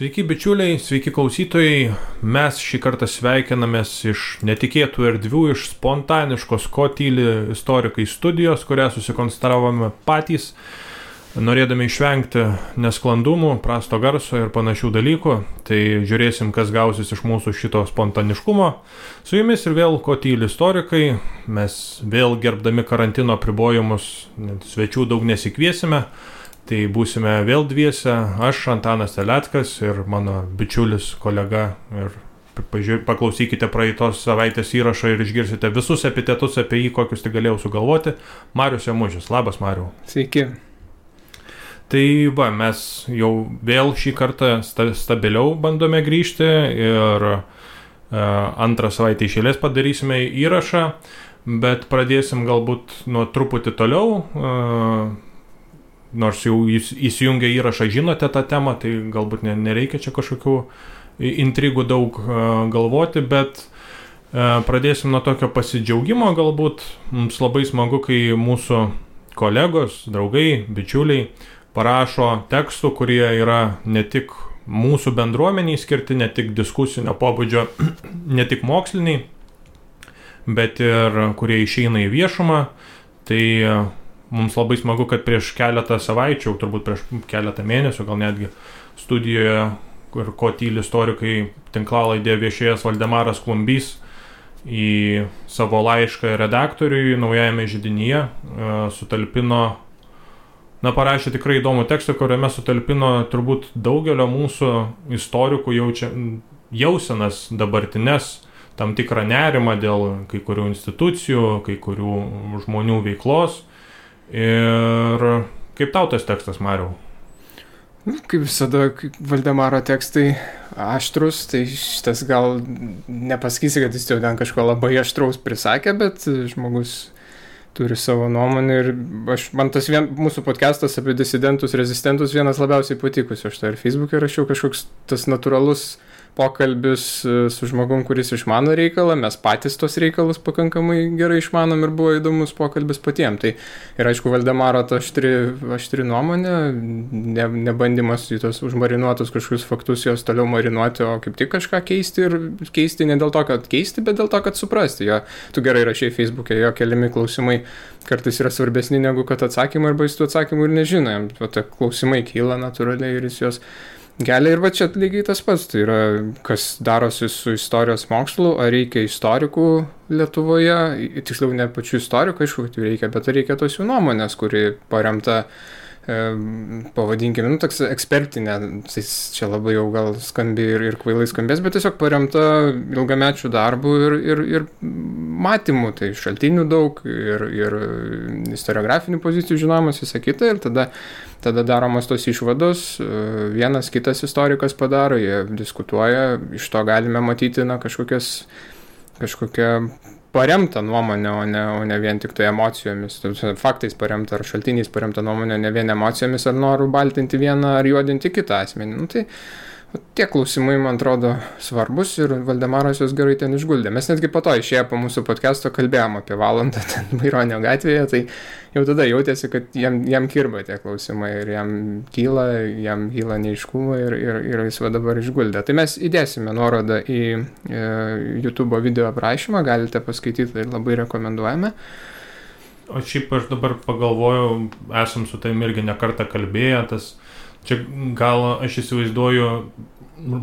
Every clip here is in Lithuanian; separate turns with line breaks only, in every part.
Sveiki bičiuliai, sveiki klausytojai. Mes šį kartą sveikinamės iš netikėtų erdvių, iš spontaniškos Ko tyli istorikai studijos, kurią susikonstravome patys, norėdami išvengti nesklandumų, prasto garso ir panašių dalykų. Tai žiūrėsim, kas gausis iš mūsų šito spontaniškumo. Su jumis ir vėl Ko tyli istorikai. Mes vėl gerbdami karantino apribojimus, svečių daug nesikviesime. Tai būsime vėl dviese, aš Antanas Teleckas ir mano bičiulis kolega, ir paklausykite praeitos savaitės įrašą ir išgirsite visus epitetus apie jį, kokius tik galėjau sugalvoti. Marius Jamužis. Labas, Mariau.
Sveiki.
Tai mes jau vėl šį kartą stabiliau bandome grįžti ir antrą savaitę iš eilės padarysime įrašą, bet pradėsim galbūt nuo truputį toliau. Nors jau įsijungę įrašą žinote tą temą, tai galbūt nereikia čia kažkokių intrigų daug galvoti, bet pradėsim nuo tokio pasidžiaugimo galbūt. Mums labai smagu, kai mūsų kolegos, draugai, bičiuliai parašo tekstų, kurie yra ne tik mūsų bendruomeniai skirti, ne tik diskusinio pobūdžio, ne tik moksliniai, bet ir kurie išeina į viešumą. Tai mums labai smagu, kad prieš keletą savaičių, turbūt prieš keletą mėnesių, gal netgi studijoje, kur Ko tyli istorikai tinklalaidėje viešėjęs Valdemaras Klumbys į savo laišką redaktoriui Naujajame židinyje sutalpino, parašė tikrai įdomų tekstą, kuriame sutalpino turbūt daugelio mūsų istorikų jausenas dabartines, tam tikrą nerimą dėl kai kurių institucijų, kai kurių žmonių veiklos. Ir kaip tau tas tekstas, Mariau?
Kaip visada, Valdemaro tekstai aštrus, tai šitas gal nepasakysi, kad jis jau ten kažko labai aštraus prisakė, bet žmogus turi savo nuomonę ir man tas mūsų podcastas apie disidentus, rezistentus vienas labiausiai patikusių. Aš tai ir Facebook'e rašiau kažkoks tas natūralus pokalbis su žmogum, kuris išmano reikalą, mes patys tos reikalus pakankamai gerai išmanom ir buvo įdomus pokalbis patiems. Tai ir aišku, Valdemaro ta aštri nuomonė, nebandymas į tos užmarinuotus kažkokius faktus jos toliau marinuoti, o kaip tik kažką keisti ir keisti ne dėl to, kad keisti, bet dėl to, kad suprasti. Tu gerai rašai Facebook'e, jo keliami klausimai kartais yra svarbesni negu kad atsakymai, arba jis tų atsakymų ir nežino. Tai klausimai kyla natūraliai ir jis jos kelia. Ir va čia lygiai tas pats, tai yra, kas darosi su istorijos mokslu, ar reikia istorikų Lietuvoje, tiksliau ne pačių istorikų, aišku, kad jų reikia, bet reikia tos jų nuomonės, kuri paremta, pavadinkime, toks ekspertinė, tai čia labai jau gal skambi ir kvailai skambės, bet tiesiog paremta ilgamečių darbų ir matymų, tai šaltinių daug ir istoriografinių pozicijų žinojimas, visą kitą, ir tada daromos tos išvados, vienas kitas istorikas padaro, jie diskutuoja, iš to galime matyti kažkokią paremta nuomonė, o ne vien tik tai emocijomis, faktais paremta ar šaltiniais paremta nuomonė, ne vien emocijomis ar noru baltinti vieną ar juodinti kitą asmenį. Tai tie klausimai, man atrodo, svarbus ir Valdemaras jos gerai ten išguldė. Mes netgi po to išėję po mūsų podcast'o kalbėjom apie valandą ten Maironio gatvėje, tai jau tada jautėsi, kad jam kirba tie klausimai ir jam kyla neiškumai ir jis va dabar išguldė. Tai mes įdėsime nuorodą į YouTube video aprašymą, galite paskaityti ir labai rekomenduojame.
O šiaip aš dabar pagalvojau, esam su tavim irgi ne kartą kalbėję, čia gal aš įsivaizduoju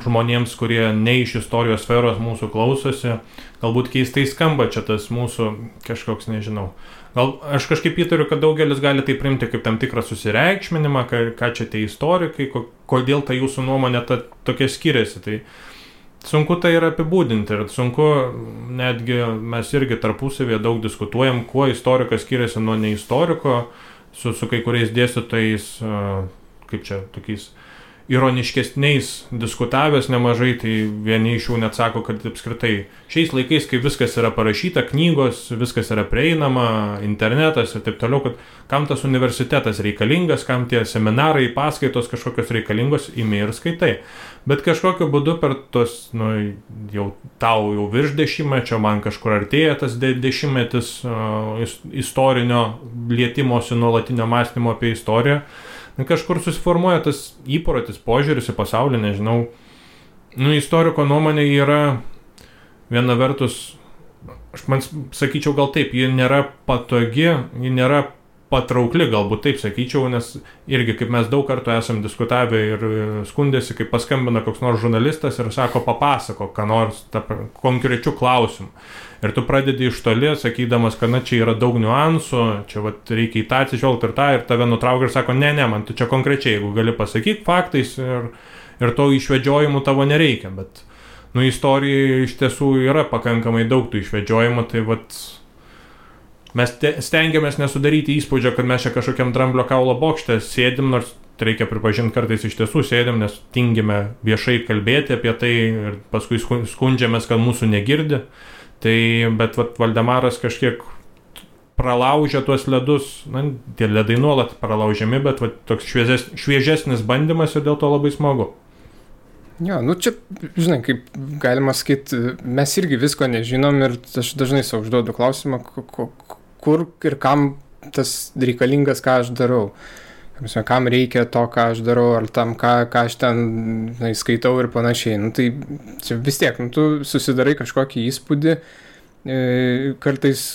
žmonėms, kurie ne iš istorijos sferos mūsų klausosi, galbūt keistai skamba čia tas mūsų kažkoks, nežinau. Gal aš kažkaip įtariu, kad daugelis gali tai priimti kaip tam tikrą susireikšminimą, ką čia tie istorikai, kodėl ta jūsų nuomonė tokia skiriasi. Tai sunku tai yra apibūdinti ir sunku, netgi mes irgi tarpusavėje daug diskutuojam, kuo istorikas skiriasi nuo neistoriko, su kai kuriais dėstytojais, kaip čia, tokiais ironiškesniais diskutavęs nemažai, tai vieni iš jų net sako, kad apskritai šiais laikais, kai viskas yra parašyta, knygos, viskas yra prieinama, internetas ir taip toliau, kad kam tas universitetas reikalingas, kam tie seminarai, paskaitos kažkokios reikalingos, imi ir skaitai. Bet kažkokiu būdu per tos, tau jau virš dešimtmečio, man kažkur artėja tas dešimtmetis istorinio lietimosi, nuolatinio mąstymo apie istoriją, kažkur susiformuoja tas įprotis, požiūris į pasaulį, nežinau. Istoriko nuomonė yra viena vertus, aš sakyčiau gal taip, ji nėra patogi, ji nėra patraukli, galbūt taip sakyčiau, nes irgi kaip mes daug kartų esam diskutavę ir skundėsi, kaip paskambina koks nors žurnalistas ir sako, papasako, ką nors konkrečių klausimų. Ir tu pradedi iš toli, sakydamas, kad čia yra daug niuansų, čia reikia į tą atsižvelgti ir tave nutraukia ir sako, ne, man tu čia konkrečiai, jeigu gali pasakyti faktais ir to išvedžiojimų tavo nereikia, bet istorijoje iš tiesų yra pakankamai daug tų išvedžiojimų, tai mes stengiamės nesudaryti įspūdžio, kad mes čia kažkokiam dramblio kaulo bokšte sėdim, nors reikia pripažinti, kartais iš tiesų sėdim, nes tingime viešai kalbėti apie tai ir paskui skundžiamės, kad mūsų negirdi. Bet Valdemaras kažkiek pralaužia tuos ledus, tie ledai nuolat pralaužiami, bet toks šviežesnis bandymas ir dėl to labai smagu.
Jo, čia, žinai, kaip galima sakyti, mes irgi visko nežinom ir aš dažnai savo užduodu klausimą, kur ir kam tas reikalingas, ką aš darau. Kam reikia to, ką aš darau, ar tam, ką aš ten skaitau ir panašiai. Tai čia vis tiek, tu susidarai kažkokį įspūdį, kartais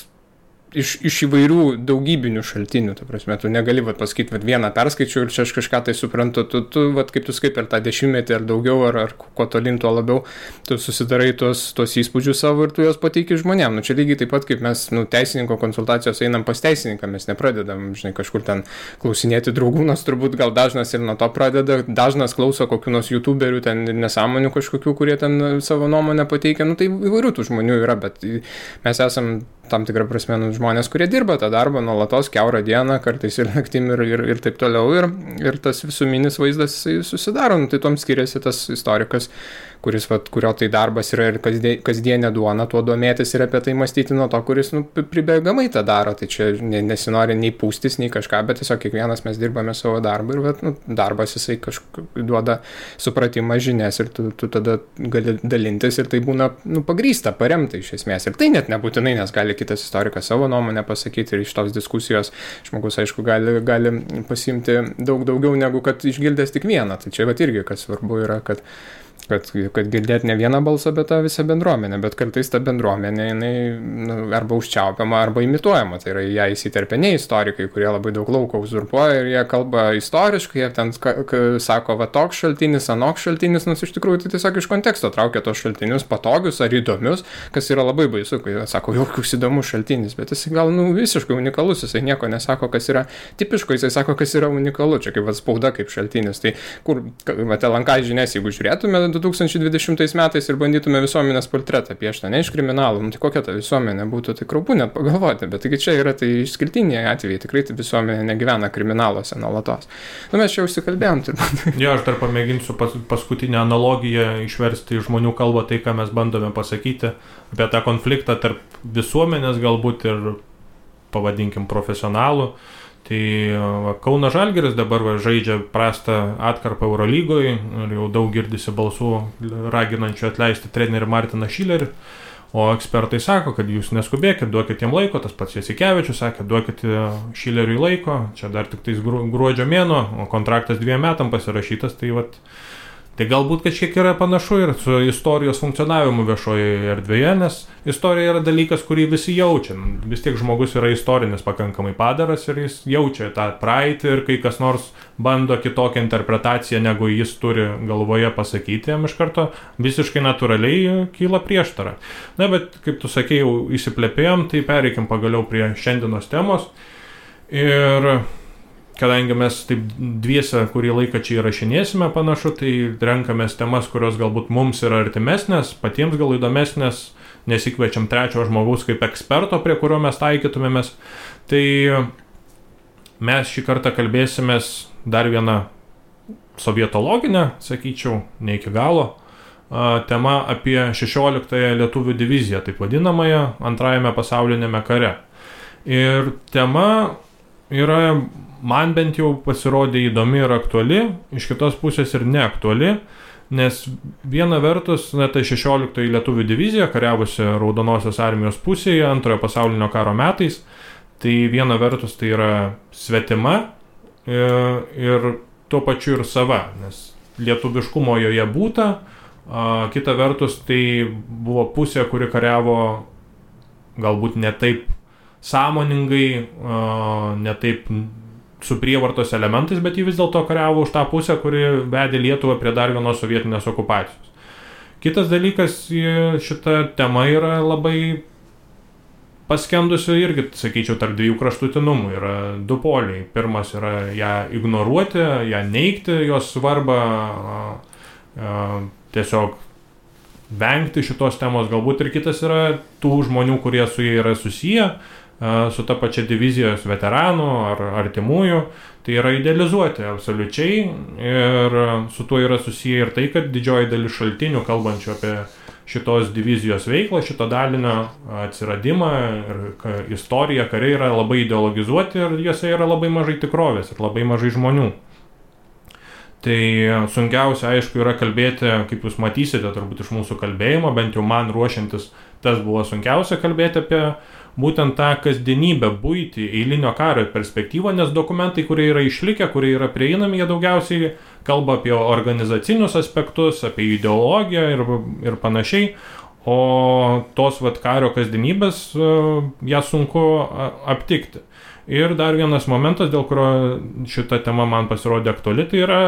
iš įvairių daugybinių šaltinių, ta prasme, tu negali pasakyti, vieną perskaičiau ir čia aš kažką tai suprantu, tu kaip tu skai per tą 10 ar daugiau, ar kuo tolin, tuo labiau, tu susidarai tuos įspūdžius savo ir tu juos pateiki žmonėm. Čia lygiai taip pat, kaip mes teisininko konsultacijos einam pas teisininką, mes nepradedam, žinai, kažkur ten klausinėti draugų, nors turbūt gal dažnas ir nuo to pradeda, dažnas klauso kokių nors youtuberių ten nesąmonių kažkokių, kurie ten savo nuomonę pateikia, tai įvairių tų žmonių yra, bet mes esam tam tikrą prasme žmonės, kurie dirba tą darbą nuolatos, kiaurą dieną, kartais ir naktim ir taip toliau, ir tas visuminis vaizdas susidaro, tai tom skiriasi tas istorikas, kurio tai darbas yra ir kasdienė duona, tuo domėtis ir apie tai mąstyti nuo to, kuris pribėgamai tą daro, tai čia nesinori nei pūstis, nei kažką, bet tiesiog kiekvienas mes dirbame savo darbą ir darbas jisai duoda supratimą, žinias ir tu tada gali dalintis ir tai būna pagrįsta, paremta iš esmės ir tai net nebūtinai, nes gali kitas istorikas savo nuomonę pasakyti ir iš tos diskusijos žmogus, aišku, gali pasiimti daug daugiau negu kad išgirdęs tik vieną, tai čia irgi kas svarbu yra, kad girdėti ne vieną balsą, bet tą visą bendruomenę, bet kartais ta bendruomenė jinai arba užčiaupiama, arba imituojama, tai yra ją įsiterpia ne istorikai, kurie labai daug lauko uzurpuoja ir jie kalba istoriškai, jie ten sako, toks šaltinis, anoks šaltinis, nors iš tikrųjų tai tiesiog iš konteksto traukia tos šaltinius patogius ar įdomius, kas yra labai baisu, kai jie sako, jokius įdomus šaltinis, bet jis gal visiškai unikalus, jisai nieko nesako, kas yra tipiško, jisai sako, kas yra unikalu, čia kaip spauda kaip šaltinis, tai kur LNK žinias, jeigu žiūrėtume 2020 metais ir bandytume visuomenės portretą piešti, ne iš kriminalų, tai kokia ta visuomenė būtų, tai kraupu net pagalvoti, bet taigi čia yra tai išskirtiniai atvejai, tikrai tai visuomenė negyvena kriminaluose nuolatos. Mes čia užsikalbėjom turbūt.
Jo, aš dar pamėginsiu paskutinę analogiją išversti į žmonių kalbą tai, ką mes bandome pasakyti apie tą konfliktą tarp visuomenės galbūt ir, pavadinkim, profesionalų. Tai Kauno Žalgiris dabar žaidžia prastą atkarpą Eurolygoje ir jau daug girdisi balsų raginančių atleisti trenerį Martiną Šilerį, o ekspertai sako, kad jūs neskubėkit, duokit jam laiko, tas pats Jasikevičius sakė, duokit Šileriui laiko, čia dar tik tais gruodžio mėnuo, o kontraktas 2 metam pasirašytas, tai galbūt kažkiek yra panašu ir su istorijos funkcionavimu viešoje erdvėje, nes istorija yra dalykas, kurį visi jaučia. Vis tiek žmogus yra istorinis pakankamai padaras ir jis jaučia tą praeitį ir kai kas nors bando kitokią interpretaciją, negu jis turi galvoje pasakyti, jam iš karto visiškai natūraliai kyla prieštara. Na, bet kaip tu sakei, jau įsiplepėjom, tai pereikim pagaliau prie šiandienos temos. Ir kadangi mes taip dviese kurį laiką čia įrašinėsime panašu, tai renkamės temas, kurios galbūt mums yra artimesnės, patiems gal įdomesnės, nesikviečiam trečio žmogaus kaip eksperto, prie kurio mes taikytumėmės. Tai mes šį kartą kalbėsimės dar vieną sovietologinę, sakyčiau, ne iki galo, tema apie 16-ąją lietuvių diviziją, taip vadinamąją, antrajame pasaulinėme kare. Ir tema yra, man bent jau pasirodė įdomi ir aktuali, iš kitos pusės ir neaktuali, nes viena vertus, tai 16 lietuvių divizija, kariavusi Raudonosios armijos pusėje antrojo pasaulinio karo metais, tai viena vertus tai yra svetima ir tuo pačiu ir sava, nes lietuviškumo joje būta, kita vertus tai buvo pusė, kuri kariavo galbūt ne taip sąmoningai, ne taip su prievartos elementais, bet jį vis dėlto kariavo už tą pusę, kuri vedė Lietuvą prie dar vienos sovietinės okupacijos. Kitas dalykas, šita tema yra labai paskendusi irgi, sakyčiau, tarp dviejų kraštutinumų. Yra du poliai. Pirmas yra ją ignoruoti, ją neigti, jos svarbą, tiesiog vengti šitos temos. Galbūt ir kitas yra tų žmonių, kurie su jie yra susiję, su ta pačia divizijos veteranų ar artimųjų, tai yra idealizuoti absoliučiai ir su tuo yra susiję ir tai, kad didžioji dalis šaltinių kalbančių apie šitos divizijos veiklą, šito dalinio atsiradimą ir istoriją, kariai yra labai ideologizuoti ir juose yra labai mažai tikrovės ir labai mažai žmonių. Tai sunkiausia, aišku, yra kalbėti, kaip jūs matysite, turbūt iš mūsų kalbėjimo, bent jau man ruošiantis, tas buvo sunkiausia kalbėti apie būtent tą kasdienybę, buitį, eilinio kario perspektyvą, nes dokumentai, kurie yra išlikę, kurie yra prieinami, jie daugiausiai kalba apie organizacinius aspektus, apie ideologiją ir panašiai, o tos kario kasdienybės ją sunku aptikti. Ir dar vienas momentas, dėl kurio šita tema man pasirodė aktuali, tai yra,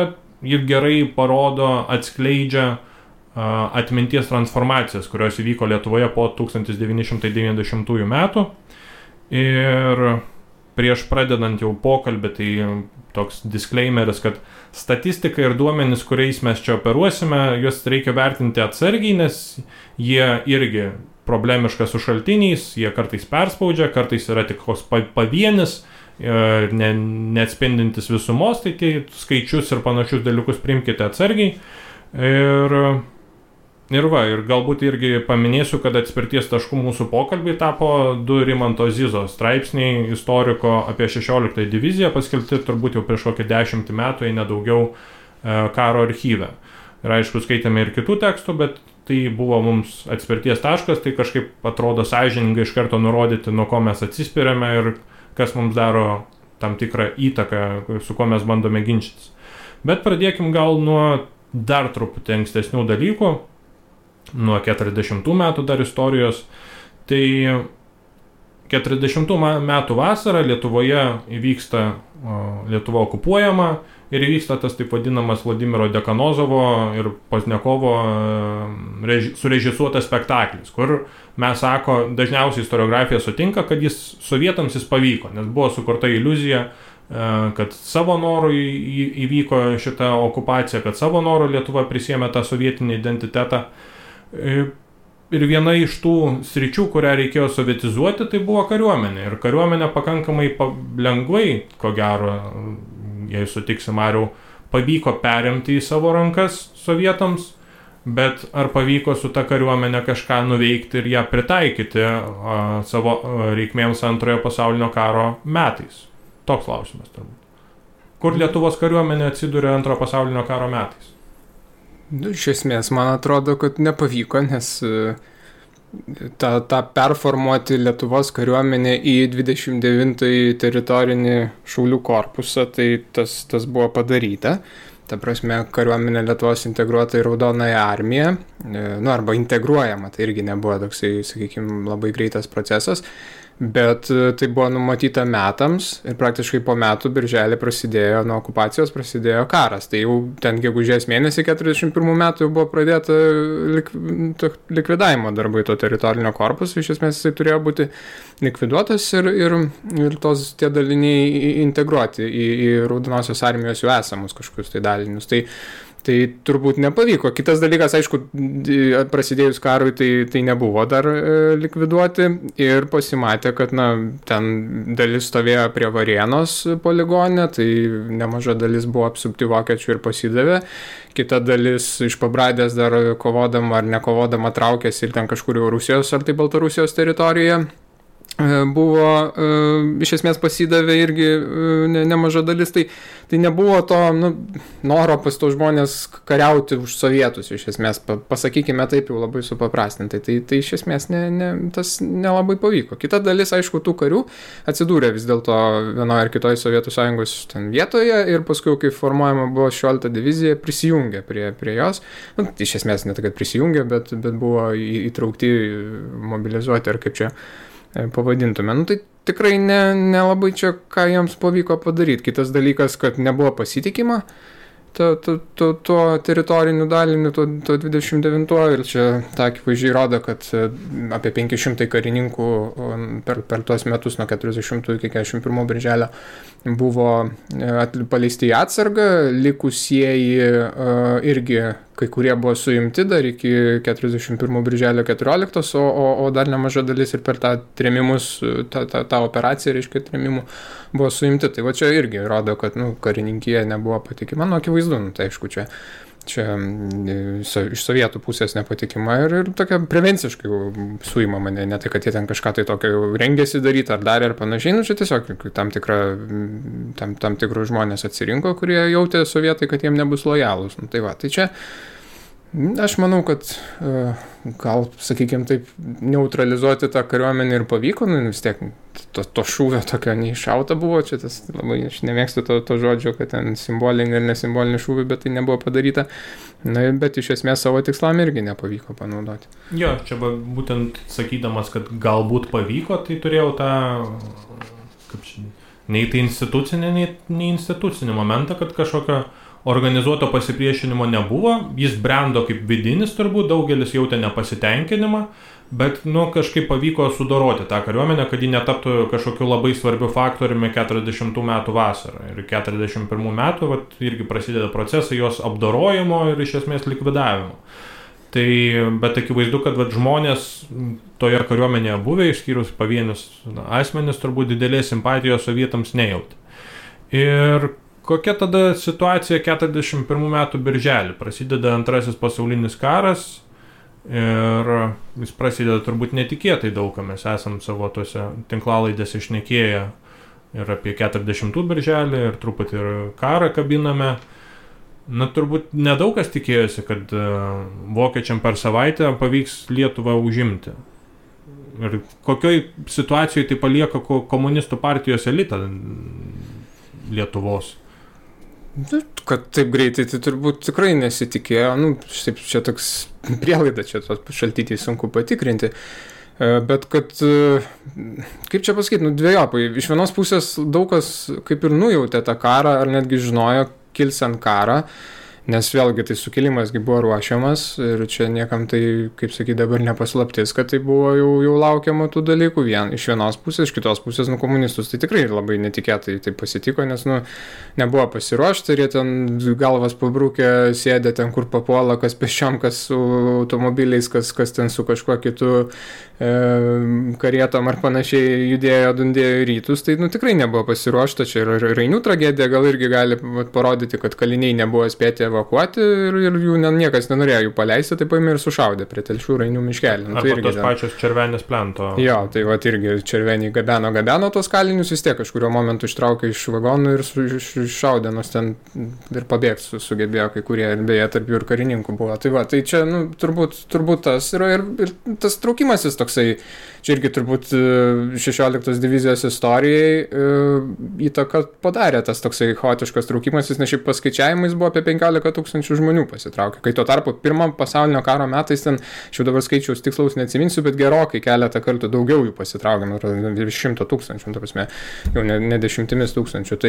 ji gerai parodo, atskleidžia atminties transformacijas, kurios įvyko Lietuvoje po 1990 metų. Ir prieš pradedant jau pokalbį, tai toks disclaimeris, kad statistika ir duomenys, kuriais mes čia operuosime, juos reikia vertinti atsargiai, nes jie irgi problemiška su šaltiniais, jie kartais perspaudžia, kartais yra tik pavienis, neatspindintis visumos, tai tie skaičius ir panašius dalykus priimkite atsargiai. Ir galbūt irgi paminėsiu, kad atspirties taškų mūsų pokalbiai tapo 2 Rimanto Zizo straipsniai istoriko apie 16 diviziją, paskelbti turbūt jau prieš kokį 10 metų, jei nedaugiau, karo archyve. Ir aišku, skaitėme ir kitų tekstų, bet tai buvo mums atspirties taškas, tai kažkaip atrodo sąžiningai iš karto nurodyti, nuo ko mes atsispiriame ir kas mums daro tam tikrą įtaką, su kuo mes bandome ginčytis. Bet pradėkim gal nuo dar truputį ankstesnių dalykų, nuo 40 metų dar istorijos. Tai 40 metų vasarą Lietuvoje įvyksta, Lietuva okupuojama ir įvyksta tas taip vadinamas Vladimiro Dekanozovo ir Poznekovo surežisuotas spektaklis, kur mes sako, dažniausiai istoriografija sutinka, kad sovietams jis pavyko, nes buvo sukurta iliuzija, kad savo norų įvyko šita okupacija, kad savo norų Lietuva prisėmė tą sovietinį identitetą. Ir viena iš tų sričių, kurią reikėjo sovietizuoti, tai buvo kariuomenė. Ir kariuomenė pakankamai lengvai, ko gero, jei sutiksi Mariau, pavyko perimti į savo rankas sovietams, bet ar pavyko su ta kariuomenė kažką nuveikti ir ją pritaikyti savo reikmėms Antrojo pasaulinio karo metais? Toks klausimas turbūt. Kur Lietuvos kariuomenė atsiduria Antrojo pasaulinio karo metais?
Iš esmės, man atrodo, kad nepavyko, nes tą performuoti Lietuvos kariuomenę į 29 teritorinį šaulių korpusą, tai tas buvo padaryta. Ta prasme, kariuomenė Lietuvos integruota į Raudonąją armiją, arba integruojama, tai irgi nebuvo toksai, sakykime, labai greitas procesas. Bet tai buvo numatyta metams ir praktiškai po metų birželį nuo okupacijos prasidėjo karas. Tai jau ten gegužės mėnesį 41 metų jau buvo pradėta likvidavimo darbai to teritorinio korpuso. Iš esmės jisai turėjo būti likviduotas ir tie daliniai integruoti į Raudonosios armijos jau esamus kažkokius tai dalinius. Tai turbūt nepavyko. Kitas dalykas, aišku, prasidėjus karui, tai nebuvo dar likviduoti ir pasimatė, kad ten dalis stovėjo prie Varėnos poligone, tai nemaža dalis buvo apsupti vokiečių ir pasidavė. Kita dalis iš Pabradės dar kovodama ar nekovodama traukėsi ir ten kažkur jau Rusijos ar tai Baltarusijos teritorijoje. buvo, iš esmės pasidavė irgi nemaža dalis, tai nebuvo to noro pas tos žmonės kariauti už sovietus, iš esmės, pasakykime taip jau labai supaprastintai, tai iš esmės tas nelabai pavyko. Kita dalis, aišku, tų karių atsidūrė vis dėlto vienoje ar kitoje Sovietų Sąjungos ten vietoje ir paskui, kai formuojama buvo 16 divizija, prisijungė prie jos, iš esmės ne tai, kad prisijungė, bet buvo įtraukti, mobilizuoti ar kaip čia pavadintume. Tai tikrai nelabai čia, ką jiems pavyko padaryti. Kitas dalykas, kad nebuvo pasitikima tuo teritoriniu daliniu, tuo 29 ir čia ta akivaizdžiai rodo, kad apie 500 karininkų per tuos metus nuo 40 iki 41 birželio buvo paleisti į atsargą, likusieji irgi kai kurie buvo suimti dar iki 41 birželio 14, o dar nemaža dalis ir per tą trėmimus, tą operaciją, reiškia, trėmimų buvo suimti. Tai va čia irgi rodo, kad karininkija nebuvo patikima, akivaizdu, tai aišku, čia iš sovietų pusės nepatikima ir tokia prevenciškai suimama, ne tai, kad jie ten kažką tai tokio rengėsi daryti ar darė ar panašiai, čia tiesiog tam tikrus žmonės atsirinko, kurie jautė sovietai, kad jiem nebus lojalūs. Tai va, tai čia aš manau, kad gal, sakykime taip, neutralizuoti tą kariuomenę ir pavyko, vis tiek to šūvio tokio neiššauta buvo, čia tas labai, aš nemėgstu to žodžio, kad ten simbolinį ir nesimbolinį šūvį, bet tai nebuvo padaryta, bet iš esmės savo tikslam irgi nepavyko panaudoti.
Jo, čia būtent sakydamas, kad galbūt pavyko, tai turėjau tą, nei tai institucinį, nei institucinį momentą, kad kažkokio organizuoto pasipriešinimo nebuvo, jis brendo kaip vidinis turbūt, daugelis jautė nepasitenkinimą, bet kažkaip pavyko sudoroti tą kariuomenę, kad ji netaptų kažkokiu labai svarbiu faktoriumi 40 metų vasarą. Ir 41 metų irgi prasideda procesai jos apdorojimo ir iš esmės likvidavimo. Tai, bet akivaizdu, kad žmonės toje kariuomenėje buvę, išskyrus pavienius asmenis, turbūt didelės simpatijos sovietams nejautė. Ir kokia tada situacija 41 metų birželį? Prasideda Antrasis pasaulinis karas ir jis prasideda turbūt netikėtai daug, mes esam savo tose tinklalaidėse šnekėję ir apie 40 birželį ir truputį ir karą kabiname. Turbūt nedaug kas tikėjosi, kad vokiečiam per savaitę pavyks Lietuvą užimti. Ir kokioj situacijoje tai palieka komunistų partijos elitą Lietuvos?
Kad taip greitai, tai turbūt tikrai nesitikėjo, čia toks prielaida, čia tos šaltiniai sunku patikrinti, bet kad, kaip čia pasakyti, dvejopai, iš vienos pusės daug kas kaip ir nujautė tą karą, ar netgi žinojo kilsiant karą, nes vėlgi tai sukilimasgi buvo ruošiamas ir čia niekam tai, kaip sakyti, dabar nepaslaptis, kad tai buvo jau laukiama tų dalykų iš vienos pusės, iš kitos pusės, komunistus tai tikrai labai netikėtai tai pasitiko, nes, nebuvo pasiruošta ir jie ten galvas pabrūkę, sėdė ten, kur papuola, kas pėsčiom, kas su automobiliais, kas ten su kažkuo kitu karietom ar panašiai judėjo, dundėjo į rytus, tai tikrai nebuvo pasiruošta, čia ir Rainių tragedija gal irgi gali parodyti, kad kaliniai nebuvo spėti evakuoti ir jų niekas nenorėjo jų paleisti, tai paėmė ir sušaudė prie Telšių Rainių miškelį.
Arba tos pačios Červenės plento.
Jo, tai irgi Červenį gabeno tos kalinius, vis tiek kažkurio momentu ištraukė iš vagonų ir iššaudė, nors ten ir pabėgti sugebėjo kai kurie, ir beje, tarp jų ir karininkų buvo. Tai čia, turbūt tas yra ir tas traukimasis toksai, čia irgi turbūt 16 divizijos istorijai įtaką padarė tas toksai chaotiškas traukimasis, nes šiaip paskaičiavimais buvo apie 15 000 žmonių pasitraukė. Kai tuo tarpu pirmam pasaulinio karo metais ten, aš jau dabar skaičiaus tikslaus neatsiminsiu, bet gerokai keletą kartų daugiau jų pasitraukė, 100 000, ta prasme, jau ne 10 000.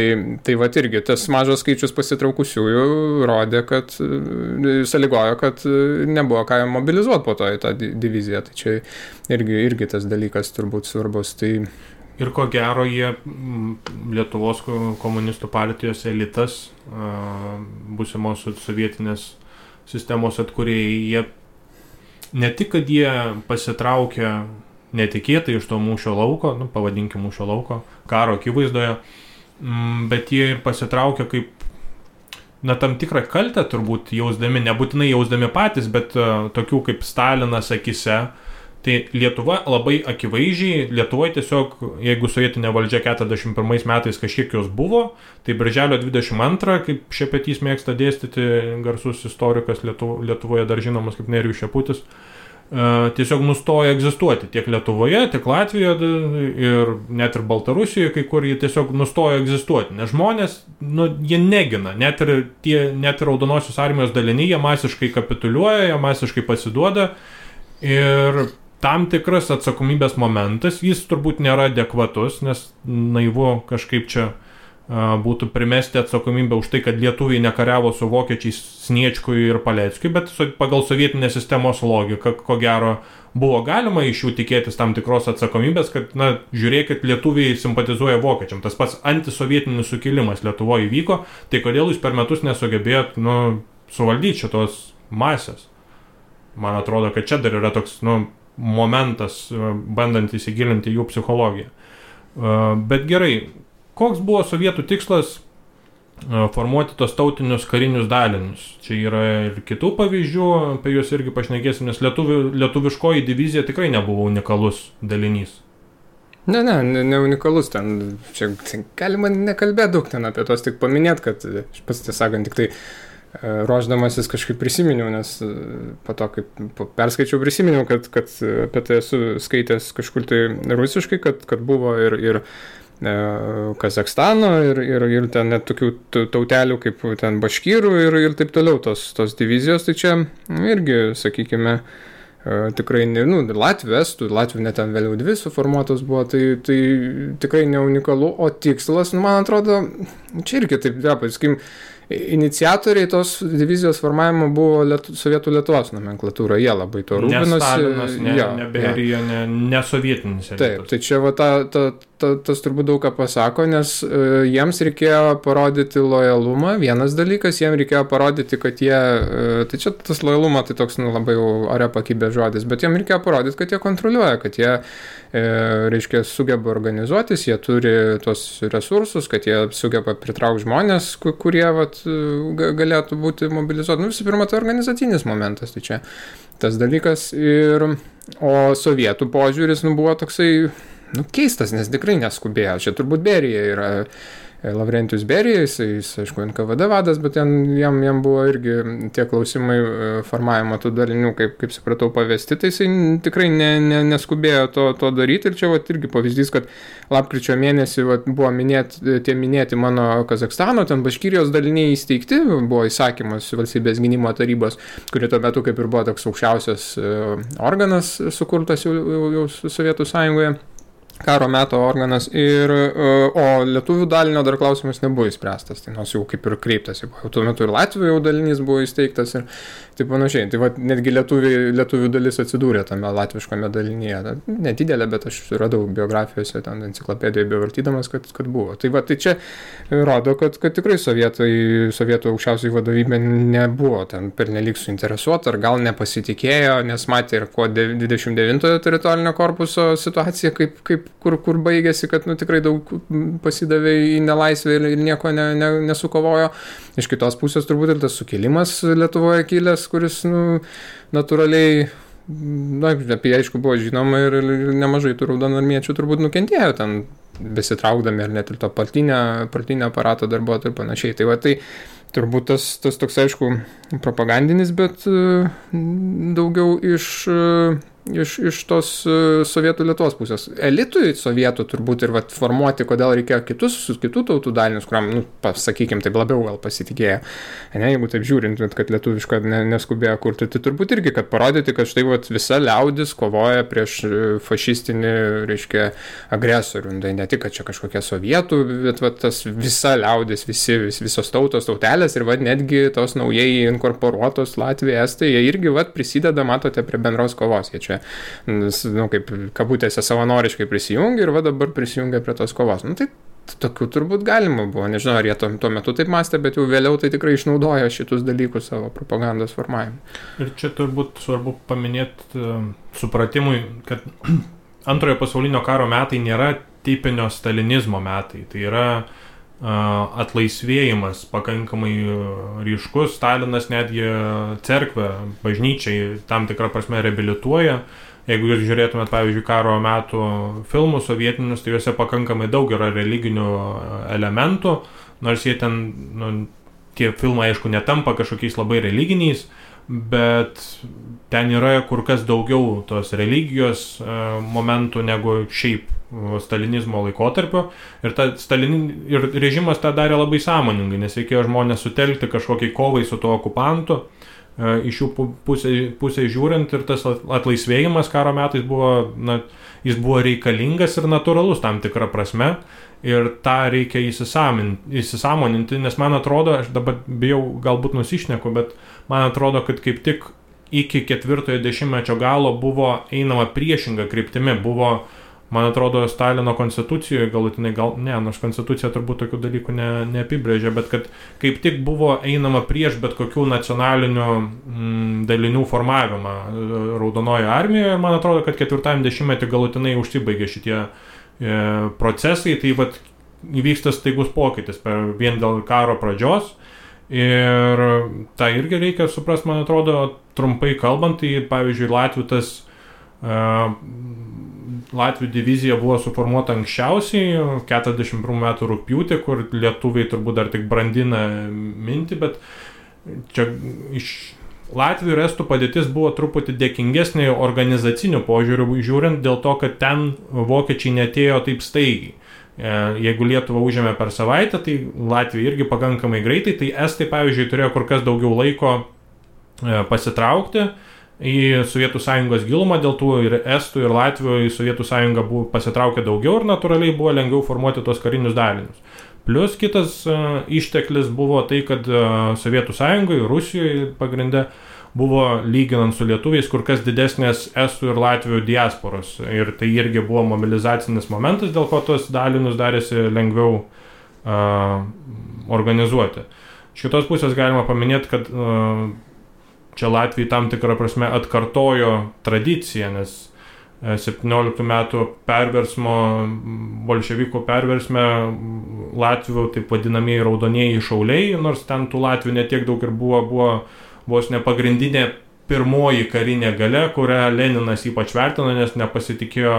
Tai irgi tas mažas skaičius pasitraukusiųjų rodė, kad sąlygojo, kad nebuvo ką mobilizuoti po to į tą diviziją. Tai čia irgi tas dalykas turbūt svarbus.
Ir ko gero jie, Lietuvos komunistų partijos elitas, būsimos sovietinės sistemos atkūrėjai, jie ne tik, kad jie pasitraukė netikėtai iš to mūšio lauko, pavadinkim mūšio lauko, karo akivaizdoje, bet jie ir pasitraukė kaip, tam tikrą kaltę turbūt jausdami, nebūtinai jausdami patys, bet tokių kaip Stalinas akise, Tai Lietuva labai akivaizdžiai, Lietuvoje tiesiog, jeigu sovietinė valdžia 41 metais kažkiek jos buvo, tai birželio 22, kaip Šepetys mėgsta dėstyti, garsus istorikas Lietuvoje dar žinomas kaip Nerijus Šeputis, tiesiog nustoja egzistuoti tiek Lietuvoje, tiek Latvijoje ir net ir Baltarusijoje, kai kur jie tiesiog nustoja egzistuoti, nes žmonės, jie negina, net ir Raudonosios armijos daliniai, jie masiškai kapituliuoja, jie masiškai pasiduoda ir tam tikras atsakomybės momentas, jis turbūt nėra adekvatus, nes naivu kažkaip čia būtų primesti atsakomybę už tai, kad lietuviai nekariavo su vokiečiais Sniečkui ir Paleckiui, bet pagal sovietinės sistemos logiką, ko gero, buvo galima iš jų tikėtis tam tikros atsakomybės, kad, žiūrėkit, lietuviai simpatizuoja vokiečiam. Tas pats antisovietinis sukilimas Lietuvoje įvyko, tai kodėl jūs per metus nesugebėjot, suvaldyti šitos masės? Man atrodo, kad čia dar yra toks, momentas, bandant įsigilinti jų psichologiją. Bet gerai, koks buvo sovietų tikslas formuoti tos tautinius karinius dalinius? Čia yra ir kitų pavyzdžių, apie juos irgi pašnekėsim, nes lietuviškoji divizija tikrai nebuvo unikalus dalinys.
Ne unikalus ten. Čia galima nekalbėti daug ten apie tos, tik paminėti, kad aš pats tiesąkant tik tai ruošdamasis kažkaip prisiminiau, nes po to, kaip perskaičiau, prisiminiau, kad apie tai esu skaitęs kažkur tai rusiškai, kad buvo ir Kazakstano ir ten net tokių tautelių kaip ten baškyrų ir taip toliau tos divizijos, tai čia irgi, sakykime, tikrai, Latvių, Estų, Latvių net ten vėliau 2 suformuotos buvo, tai tikrai ne unikalu, o tikslas, man atrodo, čia irgi taip, pasakykim, iniciatoriai tos divizijos formavimo buvo Sovietų Lietuvos nomenklatūra, jie labai to rūpinosi.
Ne Stalinas, ne Berija, ne sovietinis elitas.
Taip, tai čia tas turbūt daug ką pasako, nes jiems reikėjo parodyti lojalumą, vienas dalykas, jiems reikėjo parodyti, kad jie, tai čia tas lojalumą, tai toks labai ore pakibė žodis, bet jiems reikėjo parodyti, kad jie kontroliuoja, kad jie, reiškia, sugeba organizuotis, jie turi tos resursus, kad jie sugeba pritraukti žmonės, kurie galėtų būti mobilizuoti. Visų pirma, tai organizacinis momentas, tai čia tas dalykas. O sovietų požiūris buvo toksai keistas, nes tikrai neskubėjo. Čia turbūt Berija yra Lavrentijus Berija, jis aišku, NKVD vadas, bet jam buvo irgi tie klausimai formavimo tų dalinių, kaip supratau, pavesti, tai jisai tikrai neskubėjo to daryti. Ir čia irgi pavyzdys, kad lapkričio mėnesį buvo minėti mano Kazakstano, ten Baškirijos daliniai įsteigti, buvo įsakymas valstybės gynimo tarybos, kuri tuo metu kaip ir buvo toks aukščiausias organas sukurtas jau Sovietų Sąjungoje. Karo meto organas, o lietuvių dalinio dar klausimas nebuvo įspręstas, tai nors jau kaip ir kreiptasi, jau tuo metu ir Latvijų jau dalinys buvo įsteigtas ir taip panašiai, tai netgi lietuvių dalis atsidūrė tame latviškame dalinyje, nedidelė, bet aš radau biografijose, ten enciklopedijoje bevartydamas, kad buvo. Tai čia rodo, kad tikrai sovietų aukščiausiai vadovybė nebuvo ten pernelyg suinteresuota, ar gal nepasitikėjo, nes matė ir 29 teritorinio korpuso situacija, kur baigėsi, kad tikrai daug pasidavė į nelaisvę ir nieko nesukovojo. Iš kitos pusės turbūt ir tas sukilimas Lietuvoje kilęs, kuris natūraliai, apie jį aišku buvo žinoma ir nemažai tų raudonarmiečių turbūt nukentėjo ten besitraukdami, ar net ir to partinio aparato darbuotojų ir panašiai. Tai turbūt tas toks, aišku, propagandinis, bet daugiau iš tos Sovietų Lietuvos pusės. Elitui sovietų turbūt ir formuoti, kodėl reikėjo kitų tautų dalinius, kuriam, sakykim, taip labiau gal pasitikėjo. Jeigu taip žiūrint, kad lietuvišką neskubėjo kurti, tai turbūt irgi, kad parodyti, kad štai visa liaudis kovoja prieš fašistinį, reiškia, agresorių. Tai ne tik, kad čia kažkokia sovietų, bet tas visa liaudis, visos tautos, tautelės ir netgi tos naujai inkorporuotos Latvija, Estai, jie irgi prisideda, matote, prie bendros kovos. Jie čia, kaip kabutėse savanoriškai prisijungia ir dabar prisijungia prie tos kovos. Tai tokių turbūt galima buvo. Nežinau, ar jie tuo metu taip mąstė, bet jau vėliau tai tikrai išnaudojo šitus dalykus savo propagandos formavimui. Ir
čia turbūt svarbu paminėti supratimui, kad Antrojo pasaulinio karo metai nėra tipinio stalinizmo metai. Tai yra atlaisvėjimas pakankamai ryškus. Stalinas netgi cerkvę, bažnyčiai tam tikrą prasme reabilituoja, jeigu jūs žiūrėtumėt, pavyzdžiui, karo metų filmus sovietinius, tai juose pakankamai daug yra religinių elementų, nors jie ten, tie filmai, aišku, netampa kažkokiais labai religiniais, bet ten yra kur kas daugiau tos religijos momentų negu šiaip stalinizmo laikotarpio. Ir režimas tą darė labai sąmoningai, nes reikėjo žmonės sutelkti kažkokiai kovai su tuo okupantu. Iš jų pusės žiūrint, ir tas atlaisvėjimas karo metais buvo, jis buvo reikalingas ir natūralus tam tikrą prasme. Ir tą reikia įsisąmoninti, nes man atrodo, aš dabar bijau galbūt nusišneku, bet man atrodo, kad kaip tik iki 4-ojo dešimtmečio galo buvo einama priešinga kryptimi. Buvo, man atrodo, Stalino konstitucijoje galutinai, nors konstitucija turbūt tokių dalykų neapibrėžia, bet kad kaip tik buvo einama prieš bet kokių nacionalinių dalinių formavimą Raudonojoje armijoje. Ir man atrodo, kad 4-ajam dešimtmetį galutinai užsibaigė šitie procesai, tai vat įvyksta staigus pokytis vien dėl karo pradžios. Ir tą irgi reikia suprasti, man atrodo, trumpai kalbant, tai pavyzdžiui Latvių divizija buvo suformuota anksčiausiai 41 metų rugpjūtį, kur lietuviai turbūt dar tik brandina mintį, bet čia iš Latvių ir estų padėtis buvo truputį dėkingesnė organizacinių požiūrių žiūrint, dėl to, kad ten vokiečiai netėjo taip staigiai. Jeigu Lietuva užėmė per savaitę, tai Latvija irgi pakankamai greitai, tai estai, pavyzdžiui, turėjo kur kas daugiau laiko pasitraukti į Sovietų Sąjungos gilumą, dėl tų ir estų, ir Latvių į Sovietų Sąjungą buvo pasitraukę daugiau ir natūraliai buvo lengviau formuoti tos karinius dalinius. Plius kitas išteklis buvo tai, kad Sovietų Sąjungoje, Rusijoje pagrinde buvo, lyginant su lietuviais, kur kas didesnės estų ir Latvių diasporos. Ir tai irgi buvo mobilizacinis momentas, dėl ko tos dalinius darėsi lengviau organizuoti. Iš kitos pusės galima paminėti, kad čia Latvijai tam tikrą prasme atkartojo tradiciją, nes 17 metų perversmo, bolševikų perversme Latvių taip vadinamieji raudonieji šauliai, nors ten tų Latvių netiek daug ir buvo vos ne pagrindinė pirmoji karinė galia, kurią Leninas ypač vertino, nes nepasitikėjo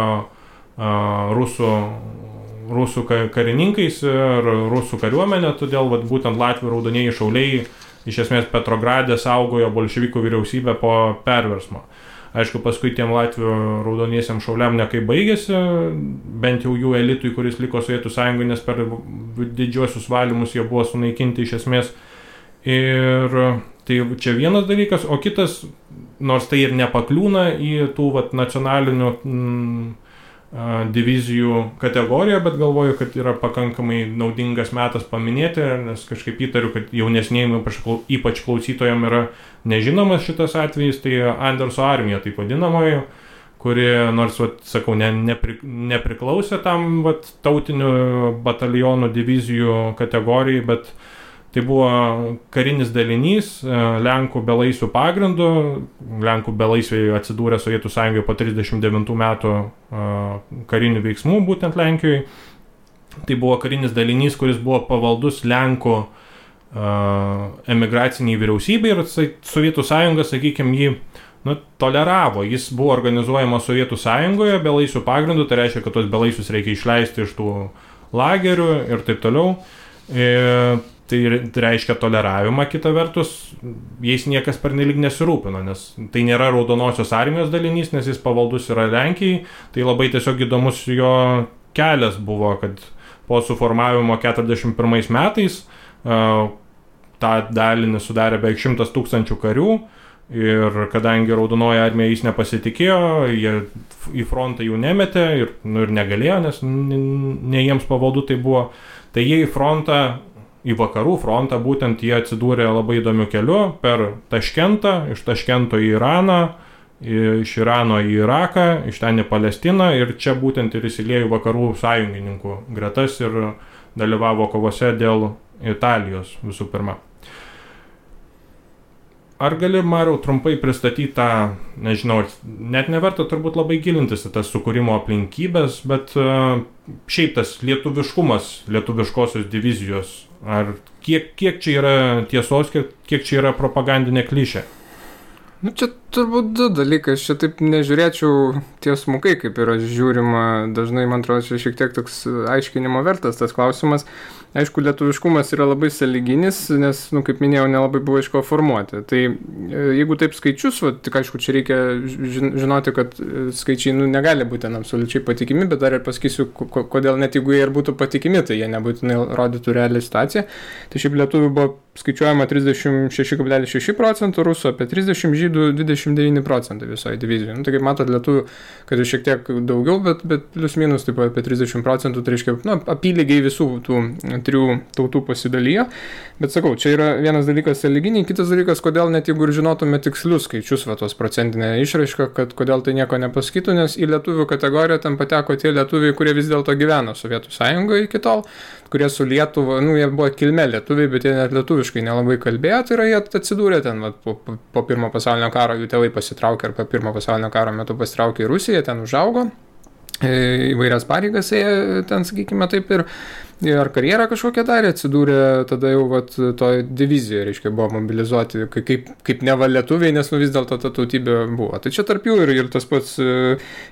rusų karininkais ir rusų kariuomenė, todėl būtent Latvių raudonieji šauliai iš esmės Petrograde saugojo bolševikų vyriausybę po perversmo. Aišku, paskui tiem Latvių raudoniesiam šauliam nekai baigėsi, bent jau jų elitui, kuris liko Sovietų Sąjungoje, nes per didžiuosius valymus jie buvo sunaikinti iš esmės. Ir tai čia vienas dalykas, o kitas, nors tai ir nepakliūna į tų nacionalinių divizijų kategoriją, bet galvoju, kad yra pakankamai naudingas metas paminėti, nes kažkaip įtariu, kad jaunesnėjim, ypač klausytojam, yra nežinomas šitas atvejis, tai Anderso armija, taip vadinamoji, kuri, nors, sakau, nepriklausė tam tautinių batalionų divizijų kategorijai, bet tai buvo karinis dalinys Lenkų belaisvių pagrindu. Lenkų belaisviai atsidūrė Sovietų Sąjungoje po 39 metų karinių veiksmų, būtent Lenkijoje. Tai buvo karinis dalinys, kuris buvo pavaldus Lenkų emigraciniai vyriausybei ir Sovietų Sąjunga, sakykime, jį toleravo. Jis buvo organizuojamas Sovietų Sąjungoje belaisvių pagrindu, tai reiškia, kad tos belaisvius reikia išleisti iš tų lagerių ir taip toliau. Tai reiškia toleravimą, kita vertus, jais niekas pernelyg nesirūpino, nes tai nėra Raudonosios armijos dalinys, nes jis pavaldus yra Lenkijai, tai labai tiesiog įdomus jo kelias buvo, kad po suformavimo 41 metais tą dalinį sudarė beveik 100 000 karių ir kadangi Raudonoji armija jais nepasitikėjo, jie į frontą jų nemetė ir negalėjo, nes ne jiems pavaldu tai buvo, tai jie į frontą, į vakarų frontą, būtent jie atsidūrė labai įdomiu keliu per Taškentą, iš Taškento į Iraną, iš Irano į Iraką, iš ten į Palestiną ir čia būtent ir įsiliejo vakarų sąjungininkų gretas ir dalyvavo kovose dėl Italijos visų pirma. Ar gali, Mariau, trumpai pristatyti tą, nežinau, net neverta turbūt labai gilintis į tas sukūrimo aplinkybės, bet šiaip tas lietuviškumas, lietuviškosios divizijos, ar kiek čia yra tiesos, kiek čia yra propagandinė klišė?
Nu, čia turbūt du dalykai, aš čia taip nežiūrėčiau tiesmukai, kaip yra žiūrima, dažnai, man atrodo, čia šiek tiek toks aiškinimo vertas tas klausimas. Aišku, lietuviškumas yra labai sąlyginis, nes, kaip minėjau, nelabai buvo iš ko formuoti. Tai jeigu taip skaičius, tik aišku, čia reikia žinoti, kad skaičiai negali būti absoliučiai patikimi, bet dar ir pasakysiu, kodėl net jeigu jie ir būtų patikimi, tai jie nebūtinai rodytų realią situaciją. Tai šiaip lietuvių buvo skaičiuojama 36,6%, rusų apie 30%, žydų 29% visoje divizijoje. Tai kaip matot, lietuvių, kad ir šiek tiek daugiau, bet plius minus taip apie 30%, tai reiškia, apylygiai visų tų trijų tautų pasidalijo. Bet sakau, čia yra vienas dalykas sąlyginiai, kitas dalykas, kodėl net jeigu ir žinotume tikslius skaičius, tos procentinę išraišką, kad kodėl tai nieko nepasakytų, nes į lietuvių kategoriją ten pateko tie lietuviai, kurie vis dėlto gyveno Sovietų Sąjungoje iki tol, kurie su Lietuva, jie buvo kilmė lietuviai, bet jie net lietuviškai nelabai kalbėjo, tai yra jie atsidūrė ten po pirmo pasaulinio karo, jų tėvai pasitraukė ar po pirmo pasaulinio karo metu pasitraukė į Rusiją, ten užaugo, įvairias pareigas jie ten, sakykime, taip ir karjerą kažkokią darė, atsidūrė tada jau toje divizijoje, reiškia, buvo mobilizuoti kaip neva lietuviai, nes vis dėlto ta tautybė buvo. Tai čia tarp jų ir tas pats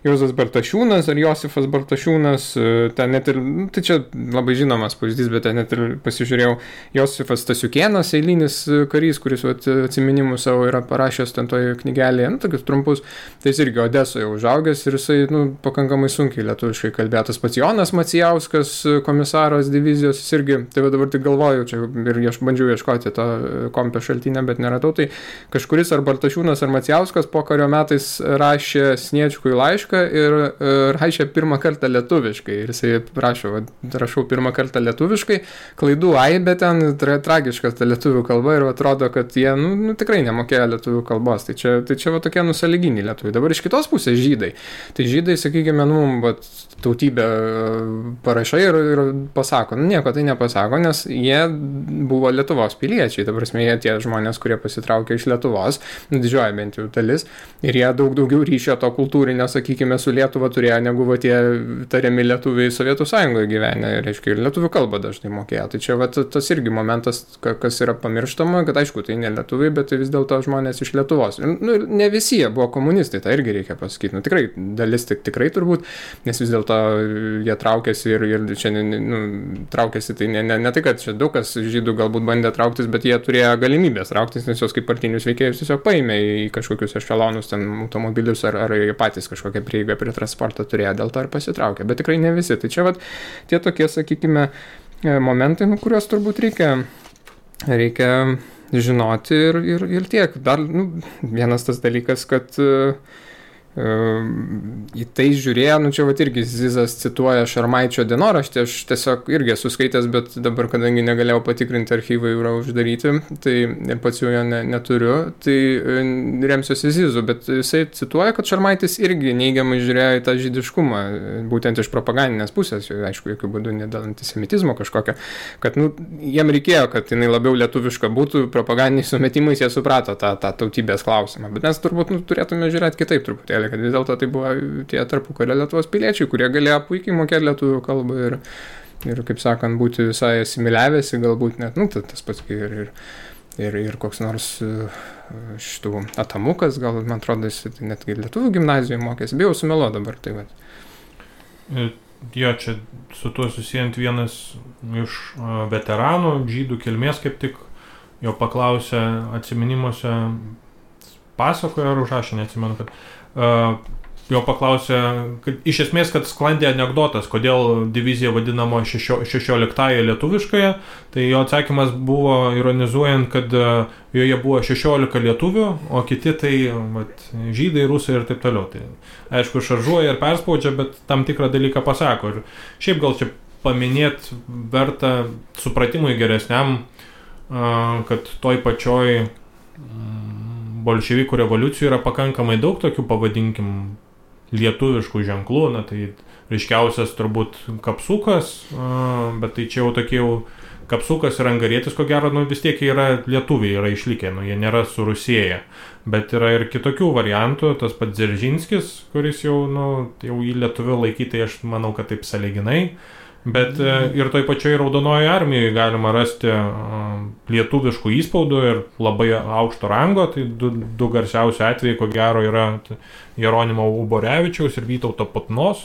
Juozas Bartašiūnas ar Josifas Bartašiūnas, ten net ir, tai čia labai žinomas pavyzdys, bet ten net ir pasižiūrėjau, Josifas Stasiukėnas, eilinis karys, kuris atsiminimus savo yra parašęs ten toje knygelėje, tokius trumpus, tai jis irgi Odesoje užaugęs ir jisai, pakankamai sunkiai lietuviškai kalbėjo. Tas pats Jonas Macijauskas, komisaras divizijos, jis irgi, tai dabar tik galvoju, čia ir bandžiau ieškoti to kompio šaltinę, bet neradau, tai kažkuris ar Bartašiūnas ar Macijauskas po kario metais rašė Sniečkui laišką ir rašė pirmą kartą lietuviškai. Ir jisai rašau pirmą kartą lietuviškai, klaidų aibė ten, tragiškas ta lietuvių kalba ir atrodo, kad jie tikrai nemokėjo lietuvių kalbos. Tai čia tokie sąlyginiai lietuviai. Dabar iš kitos pusės žydai. Tai žydai, sakykime, tautybę parašai ir pasako. Nieko tai nepasako, nes jie buvo Lietuvos piliečiai. Ta prasme, jie tie žmonės, kurie pasitraukė iš Lietuvos, didžioji bent jau dalis, ir jie daug daugiau ryšio to kultūrinio, sakykime, su Lietuva turėjo, negu tie tariami lietuviai Sovietų Sąjungoje gyvenę. Reiškia, ir lietuvių kalbą dažnai mokėjo. Tai čia tas irgi momentas, kas yra pamirštama, kad aišku, tai ne lietuviai, bet tai vis dėlto žmonės iš Lietuvos. Ne visi jie buvo komunistai, tai irgi reikia pasakyti. Tikrai, dalis tikrai turbūt, nes vis dėlto jie traukėsi ir čia traukėsi, tai ne tai, kad čia daug kas žydų galbūt bandė trauktis, bet jie turėjo galimybės trauktis, nes jos kaip partinius veikėjus tiesiog paėmė į kažkokius ešelonus, ten automobilius ar patys kažkokią prieigą prie transporto turėjo, dėl to ir pasitraukė, bet tikrai ne visi. Tai čia tie tokie, sakykime, momentai, kuriuos turbūt reikia žinoti ir tiek. Dar vienas tas dalykas, kad į tai žiūrėjo, čia irgi Zizas cituoja Šarmaičio dienoraštį, aš tiesiog irgi esu skaitęs, bet dabar, kadangi negalėjau patikrinti, archyvai yra uždaryti, tai ir pats jau jo neturiu, tai remsiuosi Zizu, bet jisai cituoja, kad Šarmaitis irgi neigiamai žiūrėjo į tą žydiškumą, būtent iš propagandinės pusės, aišku, jokių būdų ne dėl antisemitizmo kažkokio, kad jiem reikėjo, kad jinai labiau lietuviška būtų, propagandiniais sumetimais jie suprato tą tautybės klausimą, bet mes turbūt turėtume žiūrėti kitaip truputėlį, kad vis dėlto tai buvo tie tarpukario Lietuvos piliečiai, kurie galėjo puikiai mokėti lietuvių kalbą ir kaip sakant, būti visai asimiliavęsi, galbūt net, tas pats ir koks nors šitų Atamukas, gal, man atrodo, jis netgi lietuvių gimnazijoje mokėsi, bijau sumelo dabar, tai va.
Jo, čia su tuo susijant vienas iš veteranų, žydų kilmės, kaip tik jo paklausė atsiminimuose, pasakojo ar užrašė, neatsimenu, kad jo paklausė, kad iš esmės, kad sklandė anekdotas, kodėl divizija vadinama 16-ąją lietuviškąją, tai jo atsakymas buvo ironizuojant, kad joje buvo 16 lietuvių, o kiti tai žydai, rusai ir taip toliau. Tai aišku, šaržuoja ir perspaudžia, bet tam tikrą dalyką pasako. Ir šiaip gal čia paminėti verta supratimui geresniam, kad toj pačioj bolševikų revoliucijų yra pakankamai daug tokių, pavadinkim, lietuviškų ženklų, tai ryškiausias turbūt kapsukas, bet tai čia jau tokie kapsukas ir angarietis, ko gero, vis tiek yra lietuviai, yra išlikę, jie nėra surusėję, bet yra ir kitokių variantų, tas pats Dzeržinskis, kuris jau į lietuvių laikyti, aš manau, kad taip sąlyginai, bet ir toj pačioj Raudonojoje armijoje galima rasti lietuviškų įspaudų ir labai aukšto rango, tai du garsiausi atvejai, ko gero, yra Jeronimo Uborevičiaus ir Vytauto Putnos.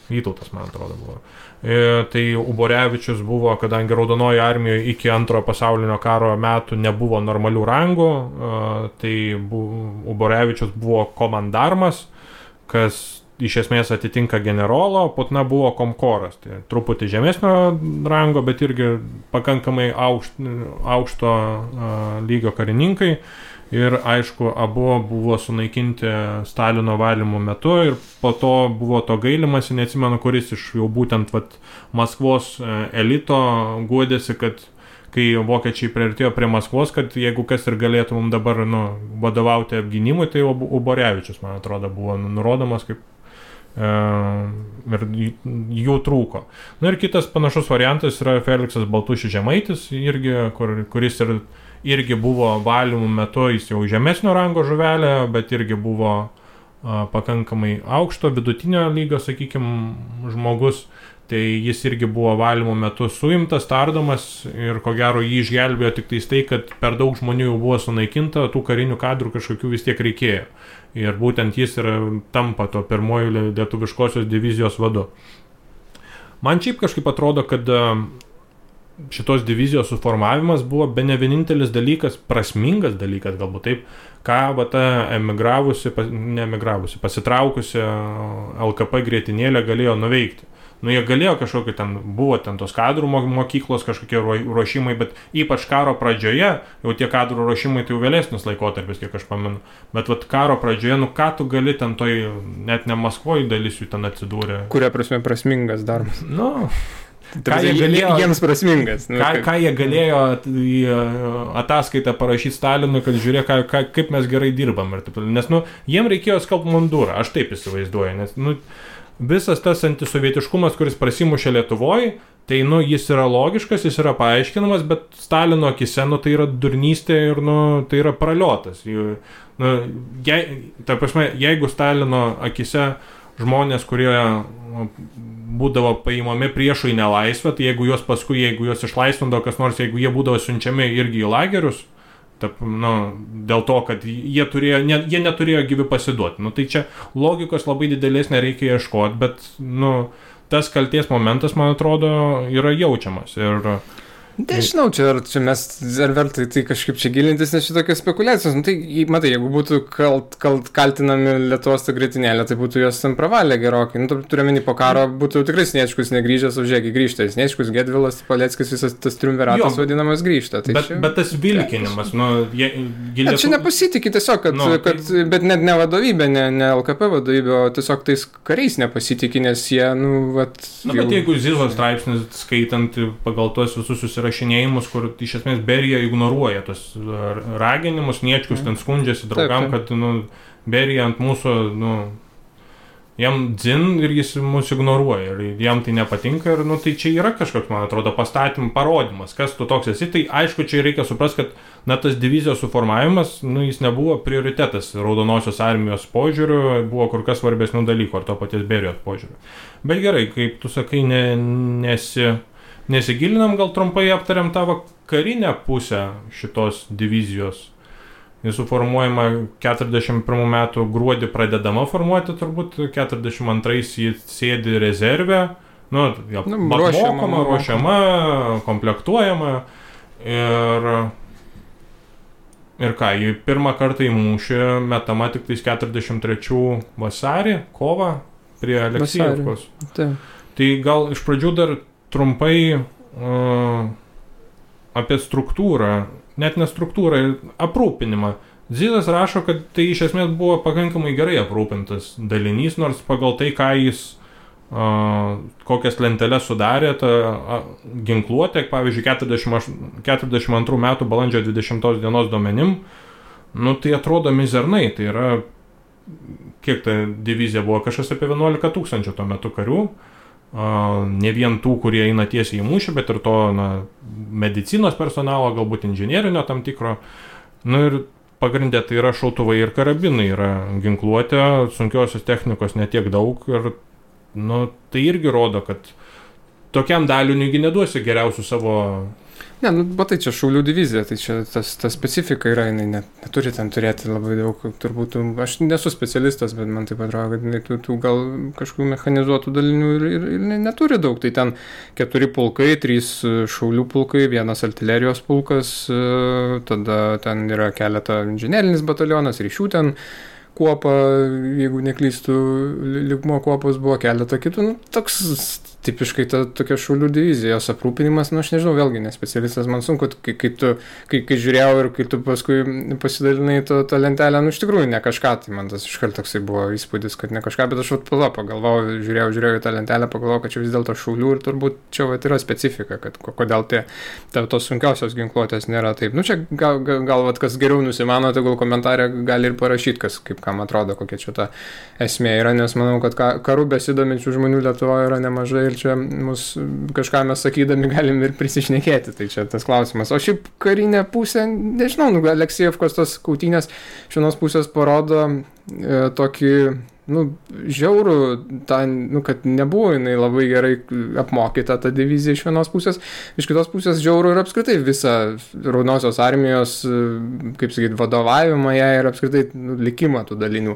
Vytautas, man atrodo, buvo. Tai Uborevičius buvo, kadangi Raudonoji armijoje iki Antrojo pasaulinio karo metų nebuvo normalių rangų, tai Uborevičius buvo komandarmas, kas iš esmės atitinka generolo, Putna buvo komkoras, tai truputį žemesnio rango, bet irgi pakankamai aukšto lygio karininkai. Ir aišku, abu buvo sunaikinti Stalino valymo metu ir po to buvo to gailimasi, neatsimenu, kuris iš jau būtent Maskvos elito guodėsi, kad kai vokiečiai priartėjo prie Maskvos, kad jeigu kas ir galėtų mums dabar vadovauti apgynimui, tai Uborevičius, man atrodo, buvo nurodomas kaip ir jų trūko. Na ir kitas panašus variantas yra Feliksas Baltušis Žemaitis, kuris irgi buvo valymų metu, jis jau žemesnio rango žuvelė, bet irgi buvo pakankamai aukšto, vidutinio lygio, sakykime, žmogus. Tai jis irgi buvo valymų metu suimtas, tardomas ir ko gero jį išgelbėjo tik tai, kad per daug žmonių jau buvo sunaikinta, tų karinių kadrų kažkokių vis tiek reikėjo. Ir būtent jis tampa to pirmojo lietuviškosios divizijos vadu. Man šiaip kažkaip atrodo, kad šitos divizijos suformavimas buvo bene vienintelis dalykas, prasmingas dalykas, galbūt taip, ką pasitraukusi LKP grietinėlė galėjo nuveikti. Jie galėjo kažkokį buvo tos kadrų mokyklos, kažkokie ruošimai, bet ypač karo pradžioje, jau tie kadrų ruošimai tai jau vėlesnis laikotarpis, kiek aš pamenu, bet karo pradžioje, ką tu gali net ne Maskvoje dalis jų ten atsidūrė.
Kuria prasme prasmingas darbas?
Ką jie galėjo,
jiems prasmingas.
Ką jie galėjo į ataskaitą parašyti Stalinui, kad žiūrėk, kaip mes gerai dirbam. Nes jiem reikėjo skalbt mundurą, aš taip įsivaizduoju, nes visas tas antisovietiškumas, kuris prasimušė Lietuvoje, tai jis yra logiškas, jis yra paaiškinamas, bet Stalino akise tai yra durnystė ir tai yra praliotas. Jeigu Stalino akise žmonės, kurie būdavo paimami priešų į nelaisvę, tai jeigu juos išlaisvindavo kas nors, jeigu jie būdavo siunčiami irgi į lagerius, dėl to, kad jie neturėjo gyvi pasiduoti. Tai čia logikos labai didelės nereikia ieškoti, bet tas kalties momentas, man atrodo, yra jaučiamas. Ir
nežinau, čia mes ar vertai tai kažkaip čia gilintis, nes šitokios spekulacijos. Tai, matai, jeigu būtų kaltinami Lietuvos ta grietinėlė, tai būtų jos ten pravalę gerokai. Turiuomenį po karo būtų tikrai Sniečkus negrįžęs, o žiūrėk, grįžta. Sniečkus, Gedvilas, Paleckis, visas tas triumviratas vadinamas grįžta. Tai
bet tas vilkinimas,
čia nepasitikė tiesiog, bet net ne vadovybė, ne LKP vadovybė, o tiesiog tais kariais nepasitikė, nes jie,
bet jeigu Zizos straipsnis skaitant pagal tuos visus susirašinėjimus, kur iš esmės Berija ignoruoja tos raginimus, Sniečkus ten skundžiasi draugam, kad Berija ant mūsų, jam dzin ir jis mus ignoruoja ir jam tai nepatinka ir tai čia yra kažkoks, man atrodo, pastatymų parodimas, kas tu toks esi. Tai aišku, čia reikia suprasti, kad tas divizijos suformavimas, jis nebuvo prioritetas Raudonosios armijos požiūriu, buvo kur kas svarbesnių dalykų ar to paties Berijos požiūriu. Bet gerai, kaip tu sakai, nesigilinam, gal trumpai aptariam tavo karinę pusę šitos divizijos. Jis suformuojama 41 metų gruodį pradedama formuoti, turbūt 42 jį sėdi rezerve, ruošiama, komplektuojama ir ką, jį pirmą kartą į mūšį metama tik 43 vasarį, kovą prie Aleksijevkos. Tai gal iš pradžių dar trumpai apie struktūrą, net ne struktūrą, aprūpinimą. Zizas rašo, kad tai iš esmės buvo pakankamai gerai aprūpintas dalinys, nors pagal tai, ką jis kokias lenteles sudarė, ta ginkluotė, pavyzdžiui, 42 metų balandžio 20 dienos duomenim, tai atrodo mizernai, tai yra, kiek ta divizija buvo, kažkas apie 11 000 tuo metu karių. Ne vien tų, kurie eina tiesiai į mūšį, bet ir to medicinos personalo, galbūt inžinierinio tam tikro. Ir pagrindė tai yra šautuvai ir karabinai, yra ginkluotė, sunkiosios technikos netiek daug ir tai irgi rodo, kad tokiam daliniui neduosi geriausių savo
Ne, nu, bet tai čia šaulių divizija, tai čia ta specifika yra, jinai neturi ten turėti labai daug, turbūt, aš nesu specialistas, bet man taip atrodo, kad jinai tų gal kažkokių mechanizuotų dalinių ir neturi daug, tai ten 4 pulkai, 3 šaulių pulkai, 1 artilerijos pulkas, tada ten yra keletą inžinerinis batalionas, ryšių ten kuopa, jeigu neklystu, lygmo kuopos buvo keletą kitų, nu, toks tipiškai tokia šaulių divizija, jos aprūpinimas, nu aš nežinau, vėlgi nespecialistas, man sunku, kai žiūrėjau ir kai tu paskui pasidalinai tą lentelę, nu iš tikrųjų ne kažką, tai man tas iškart toksai buvo įspūdis, kad ne kažką, bet aš pagalvojau, žiūrėjau į tą lentelę, pagalvojau, kad čia vis dėlto šaulių ir turbūt čia yra specifika, kad kodėl tos sunkiausios ginkluotės nėra taip. Nu čia gal kas geriau nusimano, tai gal komentarė gali ir parašyti, kaip kam atrodo, kokia čia ta esmė yra, nes manau, kad karų besidominčių žmonių Lietuvoje yra nemažai ir čia kažką mes sakydami galim ir prisišnekėti, tai čia tas klausimas. O šiaip karinė pusė, nežinau, Aleksejevkos tos kautynės iš vienos pusės parodo tokį, žiaurų, kad nebuvo jinai labai gerai apmokyta ta divizija iš vienos pusės, iš kitos pusės žiaurų ir apskritai visą Raudonosios armijos, kaip sakyti, vadovavimą ją ir apskritai likimą tų dalinių.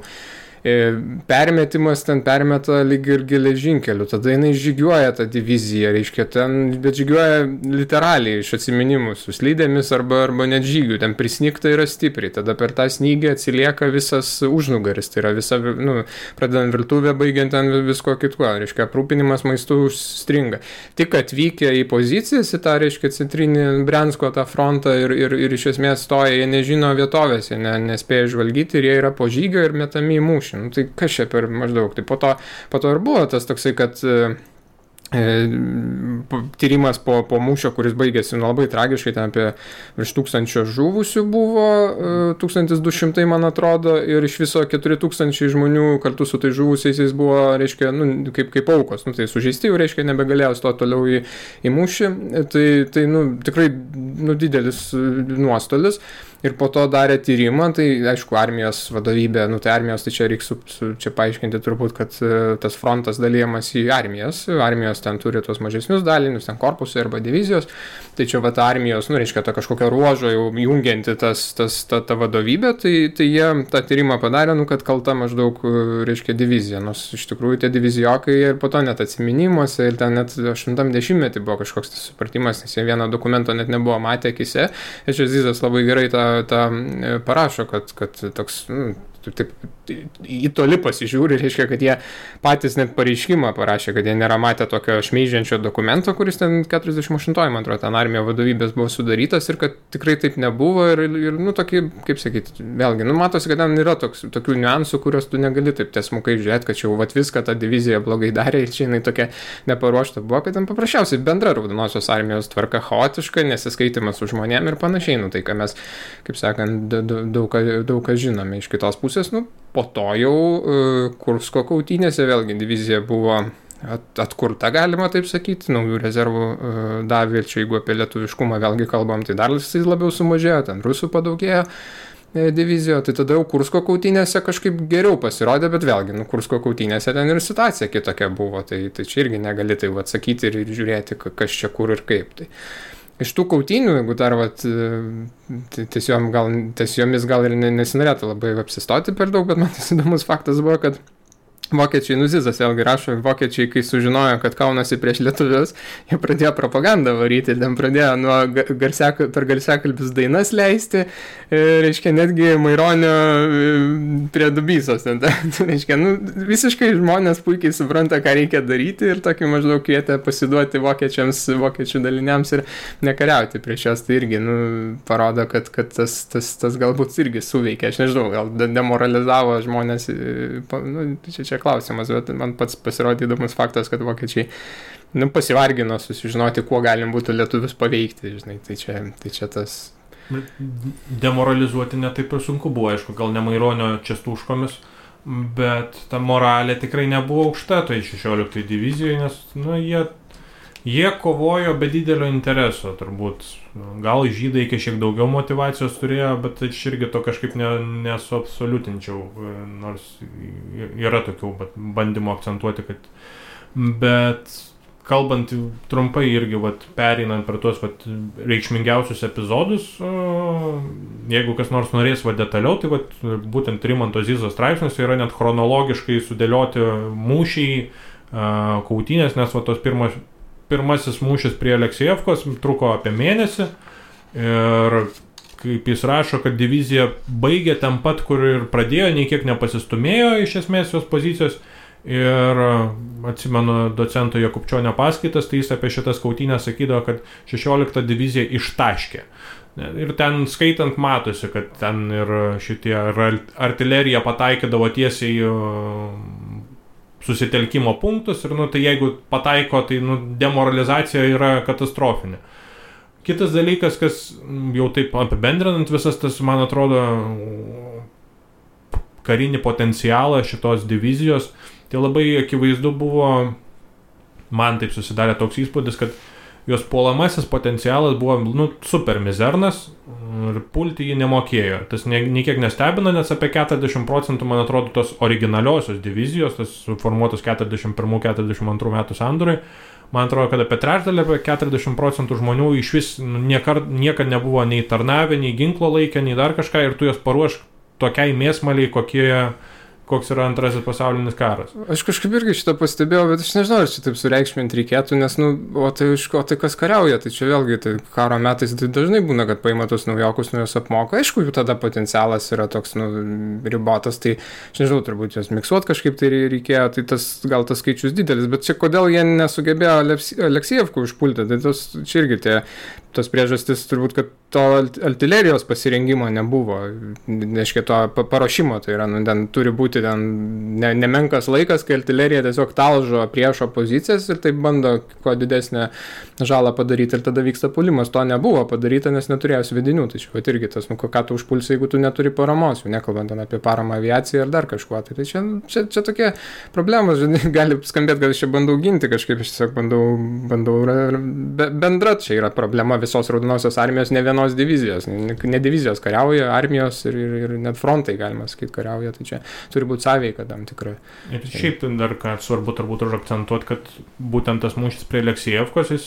Permetimas ten permeta lyg ir geležinkeliu, tada jinai žygiuoja tą diviziją, reiškia bet žygiuoja literaliai iš atsiminimų su slydėmis arba net žygių, ten prisnigta yra stipriai, tada per tą snygį atsilieka visas užnugaris, tai yra visa, pradedant virtuvę, baigiant ten visko kitko, reiškia aprūpinimas maistu užstringa. Tik atvykę į pozicijas, į tą, reiškia, centrinį Briansko tą frontą ir iš esmės stoja, jie nežino vietovės, jie nespėja žvalgyti ir jie yra po žygio ir metami į mūšį. Tai kas čia per maždaug? Tai po to ir buvo tas toksai, kad tyrimas po mūšio, kuris baigėsi labai tragiškai, ten apie virš 1000 žuvusių buvo, 1200 man atrodo, ir iš viso 4000 žmonių kartu su tai žuvusiais buvo, reiškia, kaip aukos, tai sužeisti jau, reiškia, nebegalėjo stoti toliau į mūšį, tai tikrai didelis nuostolis. Ir po to darė tyrimą, tai aišku, armijos vadovybė, tai armijos, tai čia reikia čia paaiškinti turbūt, kad tas frontas dalyjamas į armijos ten turi tos mažesnius dalinius, ten korpusai arba divizijos, tai čia armijos, reiškia, ta kažkokia ruožo jau jungianti ta vadovybė, tai jie tą tyrimą padarė, kad kalta maždaug, reiškia, divizija, nors iš tikrųjų tie divizijokai ir po to net atsiminimuose ir ten net 80-metį buvo kažkoks tas supratimas, nes jie vieno dokumento net nebuvo matę akise, ir čia Zizas labai gerai tą parašo, kad toks, taip į toli pasižiūri, reiškia, kad jie patys net pareiškimą parašė, kad jie nėra matę tokio šmeižiančio dokumento, kuris ten 48, man atrodo, ten armijo vadovybės buvo sudarytas ir kad tikrai taip nebuvo ir tokį, kaip sakyti, vėlgi, matosi, kad ten yra tokių niuansų, kurios tu negali taip tiesmukai žiūrėti, kad čia jau viską ta divizija blogai darė ir čia jinai tokia neparuošta buvo, kad ten paprasčiausiai bendra Raudonosios armijos tvarka chaotiška, nesiskaitimas su žmonėm ir panašiai, tai ką mes, kaip sakant, daug ką žinome iš kitos pusės, po to jau Kursko kautynėse vėlgi divizija buvo atkurta, galima taip sakyti, naujų rezervų davė, čia jeigu apie lietuviškumą vėlgi kalbam, tai dar labiau sumažėjo, ten rusų padaugėjo divizijoje, tai tada jau Kursko kautynėse kažkaip geriau pasirodė, bet vėlgi, Kursko kautynėse ten ir situacija kitokia buvo, tai čia irgi negali tai atsakyti ir žiūrėti, kas čia kur ir kaip. Tai iš tų kautynių, jeigu dar tiesiomis gal ir nesinorėtų labai apsistoti per daug, bet man tas įdomus faktas buvo, kad vokiečiai, Zizas vėlgi rašo, vokiečiai, kai sužinojo, kad kaunasi prieš lietuvius, jie pradėjo propagandą varyti ir ten pradėjo per garsiakalbius dainas leisti, reiškia, netgi Maironio prie Dubysos. Reiškia, visiškai žmonės puikiai supranta, ką reikia daryti ir tokį maždaug kvietė pasiduoti vokiečių daliniams ir nekariauti prieš juos. Tai irgi parodo, kad tas galbūt irgi suveikė. Aš nežinau, gal demoralizavo žmonės, čia klausimas, bet man pats pasirodė įdomus faktas, kad vokiečiai pasivargino susižinoti, kuo galim būtų lietuvius paveikti, žinai, tai čia tas.
Demoralizuoti netaip ir sunku buvo, aišku, gal ne Maironio Čestuškomis, bet ta moralė tikrai nebuvo aukšta, tai 16 divizijoje, nes jie kovojo be didelio intereso, turbūt. Gal žydai šiek daugiau motyvacijos turėjo, bet aš irgi to kažkaip nesuabsoliutinčiau, nors yra tokių bandymų akcentuoti, kad. Bet kalbant trumpai irgi pereinant per tuos reikšmingiausius epizodus, jeigu kas nors norės detaliau, tai būtent Rimanto Zizos straipsniuose yra net chronologiškai sudėlioti mūšiai, kautynės, nes tos pirmasis mūšis prie Aleksejevkos truko apie mėnesį ir kaip jis rašo, kad divizija baigė ten pat, kur ir pradėjo, nei kiek nepasistumėjo iš esmės jos pozicijos. Ir atsimenu docento Jakubčionio paskaitas, tai jis apie šitas kautynės sakydavo, kad 16 divizija ištaškė. Ir ten skaitant matosi, kad ten ir šitie artilerija pataikydavo tiesiai susitelkimo punktus ir tai jeigu pataiko, tai demoralizacija yra katastrofinė. Kitas dalykas, kas jau taip apibendrinant visas tas, man atrodo, karinį potencialą šitos divizijos, tai labai akivaizdu buvo, man taip susidarė toks įspūdis, kad jos puolamasis potencialas buvo super mizernas ir pulti jį nemokėjo. Tas niekiek nestebina, nes apie 40%, man atrodo, tos originaliosios divizijos, tas formuotos 41-42 metų sandūrai, man atrodo, kad apie trečdalį, apie 40% žmonių iš vis niekad nebuvo nei tarnavę, nei ginklo laikę, nei dar kažką ir tu jos paruošk tokiai mėsmaliai, koks yra antrasis pasaulinis karas.
Aš kažkaip irgi šitą pastebėjau, bet aš nežinau, ar čia taip sureikšminti reikėtų, nes, tai kas kariauja, tai čia vėlgi, tai karo metais tai dažnai būna, kad paima tos naujokus, juos apmoko, aišku, jų tada potencialas yra toks, ribotas, tai aš nežinau, turbūt jos miksuoti kažkaip tai reikėjo, tai gal tas skaičius didelis, bet čia kodėl jie nesugebėjo Aleksejevkų užpulti, tai čia irgi tos priežastis turbūt, kad to artilerijos pasirengimo nebuvo, neškia to paruošimo, tai yra, ten turi būti ten nemenkas laikas, kai artilerija tiesiog talžo priešo pozicijas ir taip bando kuo didesnę žalą padaryti ir tada vyksta puolimas. To nebuvo padaryta, nes neturėjo svedinių, tai čia irgi tas, ką tu užpulsi, jeigu tu neturi paramos, jau nekalbant apie paramą aviaciją ar dar kažkuo, tai čia tokie problemos, gali skambėti, kad aš čia bandau ginti kažkaip, aš tiesiog bandau bendra, čia yra problema visos Raudonosios armijos, ne vienos divizijos, ne divizijos kariauja, armijos ir net frontai, galima sakyti, kariauja, tai čia turi būti sąveika tam tikrai.
Ir šiaip dar ką svarbu turbūt akcentuoti, kad būtent tas mūšis prie Aleksejevkos, jis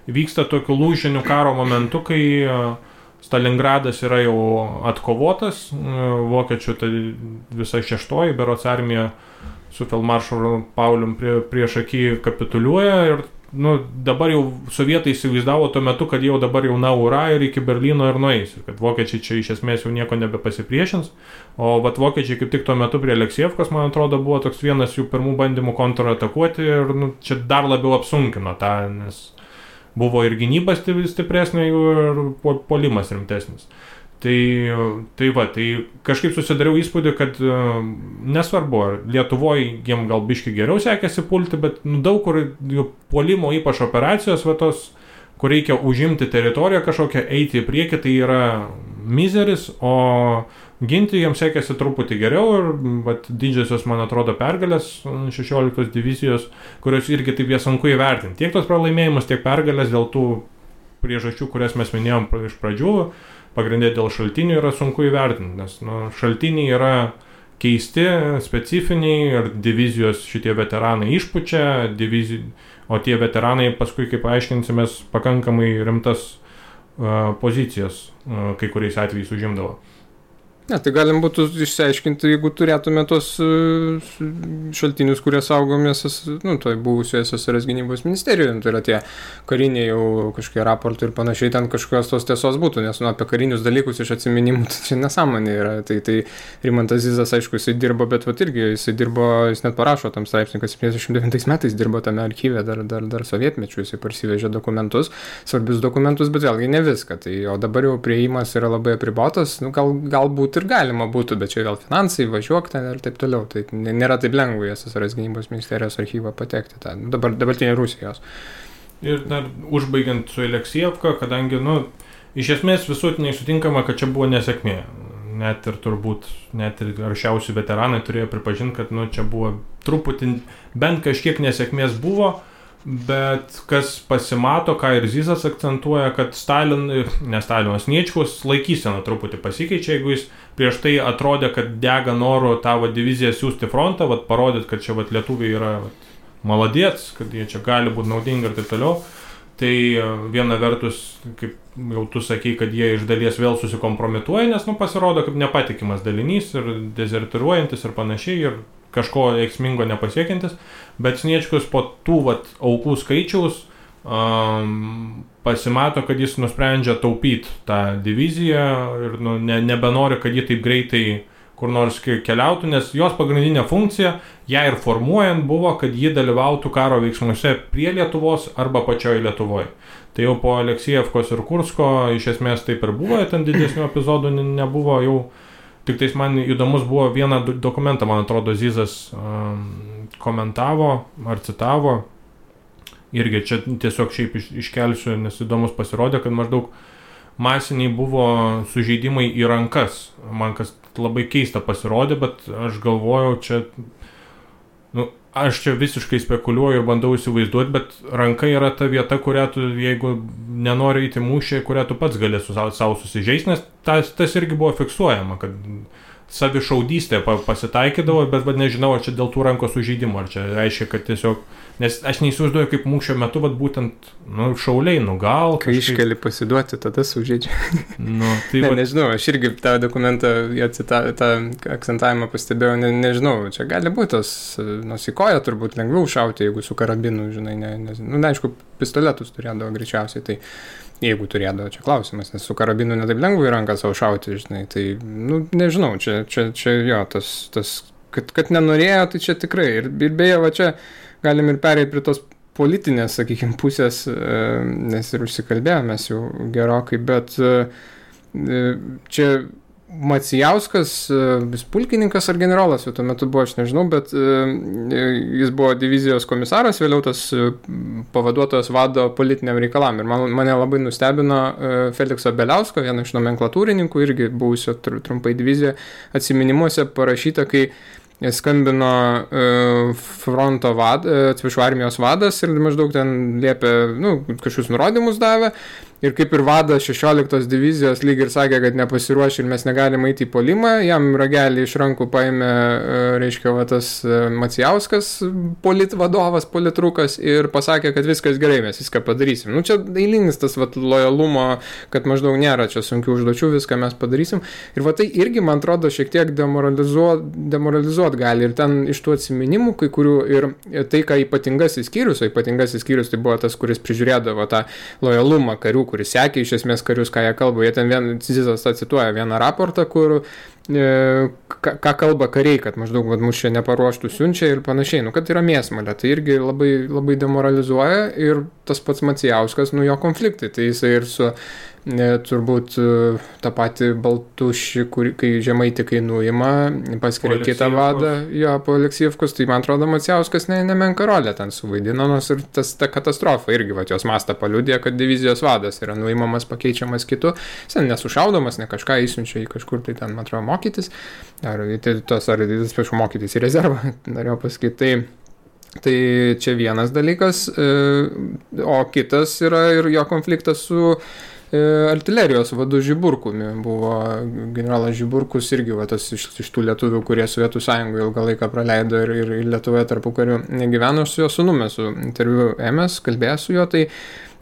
vyksta tokiu lūžiniu karo momentu, kai Stalingradas yra jau atkovotas, vokiečių tai visa 6-oji berods armija su feldmaršalu Paulium prieš akį kapituliuoja ir dabar jau sovietai įsivaizdavo tuo metu, kad jau dabar jau ura ir iki Berlyno ir nueis, ir kad vokiečiai čia iš esmės jau nieko nebepasipriešins, o vokiečiai kaip tik tuo metu prie Aleksejevkos, man atrodo, buvo toks vienas jų pirmų bandymų kontratakuoti ir čia dar labiau apsunkino tą, nes buvo ir gynyba stipresnė jų ir puolimas rimtesnis. Tai kažkaip susidariau įspūdį, kad nesvarbu, Lietuvoje jiem gal biški geriau sekėsi pulti, bet daug kur puolimo ypač operacijos, kur reikia užimti teritoriją kažkokią, eiti į priekį, tai yra mizeris, o ginti jiems sekėsi truputį geriau ir didžiosios, man atrodo, pergalės 16 divizijos, kurios irgi taip jie sunku įvertinti. Tiek tos pralaimėjimus, tiek pergalės dėl tų priežasčių, kurias mes minėjom iš pradžių, pagrindė dėl šaltinių yra sunku įvertinti, nes šaltiniai yra keisti, specifiniai ir divizijos šitie veteranai išpučia, o tie veteranai paskui, kaip aiškinsimės, pakankamai rimtas pozicijas kai kuriais atvejais užimdavo.
Ne, tai galim būtų išsiaiškinti, jeigu turėtume tos šaltinius, kurie saugomės, toj buvusioje SSRS gynybos ministerijoje, tai yra tie kariniai jau kažkokie raportai ir panašiai, ten kažkokios tos tiesos būtų, nes apie karinius dalykus iš atsiminimų tai čia nesąmonė yra. Tai Rimantas Zizas, aišku, jisai dirbo, bet irgi jis net parašo tam straipsnį, kad 79 metais dirbo tame archyve, dar sovietmečiu, jisai parsivežė dokumentus, svarbius dokumentus, bet vėlgi ne viską. O dabar jau priėjimas yra labai apribotas, galbūt ir galima būtų, bet čia vėl finansai, važiuok ten ir taip toliau. Tai nėra taip lengva į SSRS gynybos ministerijos archyvą patekti, dabartinė Rusijos.
Ir dar užbaigiant su Aleksejevka, kadangi, iš esmės visuotinai sutinkama, kad čia buvo nesėkmė. Net ir aršiausi veteranai turėjo pripažinti, kad čia buvo truputį, bent kažkiek nesėkmės buvo, bet kas pasimato, ką ir Zizas akcentuoja, kad Stalinas Sniečkus laikysena truputį pasikeičia, jeigu jis prieš tai atrodė, kad dega noru tavo diviziją siūsti frontą, parodyti, kad čia lietuviai yra maladėts, kad jie čia gali būti naudingi ir taip toliau. Tai viena vertus, kaip jau tu sakei, kad jie iš dalies vėl susikompromituoja, nes pasirodo kaip nepatikimas dalinys ir dezertiruojantis ir panašiai ir kažko veiksmingo nepasiekiantis, bet Sniečkus po tų aukų skaičiaus pasimato, kad jis nusprendžia taupyti tą diviziją ir nebenori, kad ji taip greitai kur nors keliautų, nes jos pagrindinė funkcija, ją ir formuojant, buvo, kad ji dalyvautų karo veiksmuose prie Lietuvos arba pačioje Lietuvoje. Tai jau po Aleksijevkos ir Kursko iš esmės taip ir buvo, ten didesnių epizodų nebuvo jau. Tik tais man įdomus buvo vieną dokumentą, man atrodo, Zizas komentavo ar citavo. Irgi čia tiesiog šiaip iškelsiu, nes įdomus pasirodė, kad maždaug masiniai buvo sužeidimai į rankas. Man kas labai keista pasirodė, bet aš galvojau, aš čia visiškai spekuliuoju ir bandau įsivaizduoti, bet ranka yra ta vieta, kurią tu, jeigu nenori įti mūšį, kurią tu pats gali savo susižeisti, nes tas irgi buvo fiksuojama, kad savišaudystė pasitaikydavo, bet nežinau, ar čia dėl tų rankos sužeidimo, ar čia reiškia, kad tiesiog, nes aš neįsivaizduoju, kaip mūšio metu, būtent, šauliai, gal
kai kažkaip... iškeli pasiduoti, tada sužeidžia.
Tai
nežinau, aš irgi tą dokumentą, tą akcentavimą pastebėjau, nežinau, čia gali būti tas, į koją turbūt lengviau šauti, jeigu su karabinu, žinai, aišku, pistoletus turėdavo greičiausiai, tai jeigu turėdavo, čia klausimas, nes su karabinu netaip lengva į ranką savo šauti, žinai, tai, nežinau, čia jo, tas kad nenorėjo, tai čia tikrai, ir beje, čia galim ir pereiti prie tos politinės, sakykime, pusės, nes ir užsikalbėjomės jau gerokai, bet čia Macijauskas, vis pulkininkas ar generolas, jau tuo metu buvo, aš nežinau, bet jis buvo divizijos komisaras, vėliau tas pavaduotojas vado politiniam reikalam. Ir mane labai nustebino Felikso Beliausko, vieno iš nomenklatūrininkų, irgi buvusio trumpai divizijoje, atsiminimuose parašyta, kai skambino fronto armijos vadas ir maždaug ten liepė, kažkokius nurodymus davė. Ir kaip ir vadas 16 divizijos lyg ir sakė, kad nepasiruošė ir mes negalime eiti į puolimą, jam ragelį iš rankų paėmė, reiškia, tas Macijauskas, politvadovas, politrukas ir pasakė, kad viskas gerai, mes viską padarysim. Čia eilinis tas lojalumo, kad maždaug nėra čia sunkių užduočių, viską mes padarysim. Ir tai irgi, man atrodo, šiek tiek demoralizuot gali. Ir ten iš tų atsiminimų, kai kurių ir tai, ką ypatingasis skyrius tai buvo tas, kuris prižiūrėdavo tą lojalumą karių, kuris sekė iš esmės karius, ką jie kalba. Jie ten Zizas cituoja vieną raportą, kur ką kalba kariai, kad maždaug mus čia neparuoštų siunčia ir panašiai, kad yra mėsmalė. Tai irgi labai, labai demoralizuoja ir tas pats Macijauskas, jo konfliktai. Tai jisai ir su turbūt tą patį Baltušį, kai Žemaitį nuima, paskiria kitą vadą, po Aleksijevkos, tai man atrodo Macijauskas nemenka rolę ten suvaidino, nors ir ta katastrofa irgi, jos mastą paliudė, kad divizijos vadas yra nuimamas, pakeičiamas kitu, jis nesušaudomas, ne kažką įsiunčia į kažkur, tai ten, man atrodo, mokytis, ar mokytis į rezervą, norėjau pasakyti, tai čia vienas dalykas, o kitas yra ir jo konfliktas su artilerijos vadu Žiburkumi. Buvo generolas Žiburkus irgi tas iš tų lietuvių, kurie Sovietų Sąjungoje ilgą laiką praleido ir Lietuvoje tarpukariu negyveno. Su jo sūnumi, su interviu ėmės, kalbėjęs su juo, tai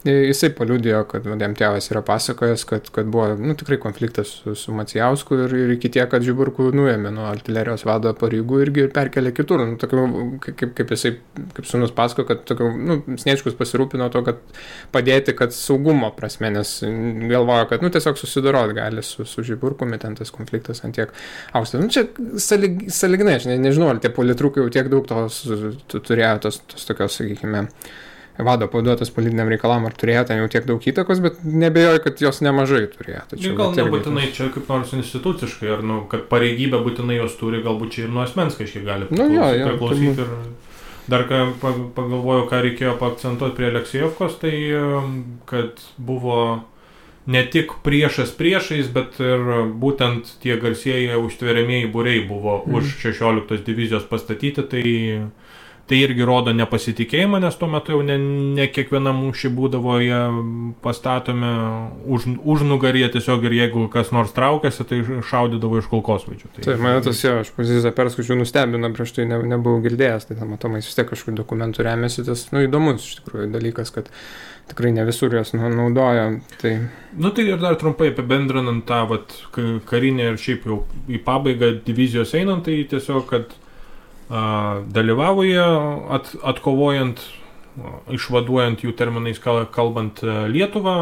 jisai paliudijo, kad jam tėvas yra pasakojęs, kad buvo tikrai konfliktas su Macijausku ir iki tiek, kad Žiburkų nuėmė nuo artilerijos vado pareigų irgi perkelė kitur. Kaip jisai, kaip sūnus pasako, kad Sniečkus pasirūpino to, kad padėti, kad saugumo prasme, nes galvojo, kad tiesiog susidorot gali su Žiburkumi, ten tas konfliktas ant tiek aukštas. Čia sąlyginai, aš nežinau, ar tie politrukai jau tiek daug tos turėjo tos tokios, sakykime, vado pavaduotas politiniam reikalam, ar turėjo ten jau tiek daug įtakos, bet nebejoju, kad jos nemažai turėjo. Tačiau,
gal nebūtinai čia kaip nors instituciškai, ar kad pareigybė būtinai jos turi, galbūt čia ir nuo asmens kažkiek gali priklausyti. Ir dar pagalvojau, ką reikėjo paakcentuoti prie Aleksijevkos, tai kad buvo ne tik priešais, bet ir būtent tie garsieji užtveriamieji būriai buvo už 16 divizijos pastatyti, tai irgi rodo nepasitikėjimą, nes tuo metu jau ne kiekviena mūšį būdavo jie pastatomi užnugaryje tiesiog ir jeigu kas nors traukėsi, tai šaudydavo iš kulkosvaidžių.
Tai mane tas jo, aš poziciją perskaičiau, nustebino, prieš tai nebuvau girdėjęs, tai matomai vis tiek kažkokių dokumentų remiasi, tas įdomus iš tikrųjų dalykas, kad tikrai ne visur jos naudoja. Tai...
Tai ir dar trumpai apibendrinant tą karinę ir šiaip jau į pabaigą divizijos einant, tai tiesiog, kad dalyvavo jie atkovojant, išvaduojant jų terminais kalbant Lietuvą,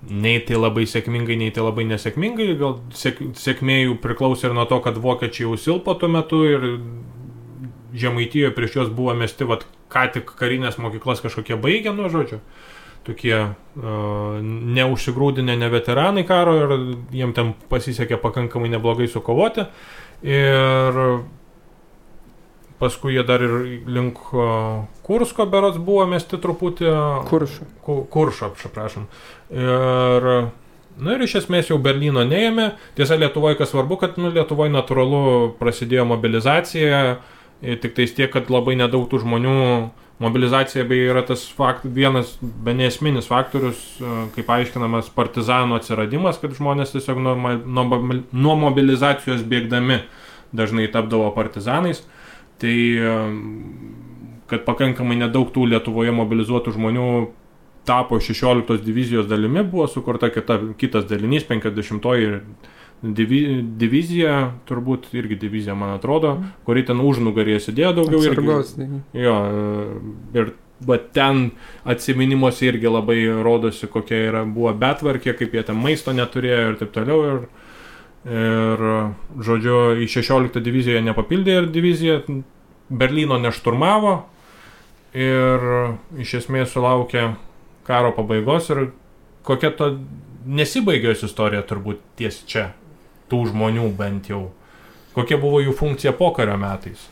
nei tai labai sėkmingai, nei tai labai nesėkmingai, gal sėkmė jų priklausė ir nuo to, kad vokiečiai jau silpo tuo metu ir Žemaitijoje prieš juos buvo mesti ką tik karinės mokyklas kažkokie baigę, žodžiu, tokie neužsigrūdinę ne veteranai karo ir jiem ten pasisekė pakankamai neblogai sukovoti ir paskui jie dar ir link Kursko berods buvo mesti truputį Kuršo, prašom. Ir iš esmės jau Berlyno neėmė. Tiesa, Lietuvoje kas svarbu, kad Lietuvoje natūralu prasidėjo mobilizacija, tik tais tiek, kad labai nedaug tų žmonių, mobilizacija beje yra tas vienas nesminis faktorius, kaip aiškinamas partizanų atsiradimas, kad žmonės tiesiog nuo mobilizacijos bėgdami dažnai tapdavo partizanais. Tai, kad pakankamai nedaug tų Lietuvoje mobilizuotų žmonių tapo 16 divizijos dalimi, buvo sukurta kitas dalinys, 50-oji divizija, turbūt irgi divizija, man atrodo, kuri ten užnugarėje sėdėjo daugiau
atsargos,
jo, ir ten atsiminimuose irgi labai rodosi, kokia buvo betvarkė, kaip jie ten maisto neturėjo ir taip toliau. Ir žodžiu, į 16 diviziją nepapildė ir divizija Berlyno nešturmavo ir iš esmės sulaukė karo pabaigos ir kokia to nesibaigė jos istorija turbūt ties čia, tų žmonių bent jau. Kokia buvo jų funkcija pokario metais?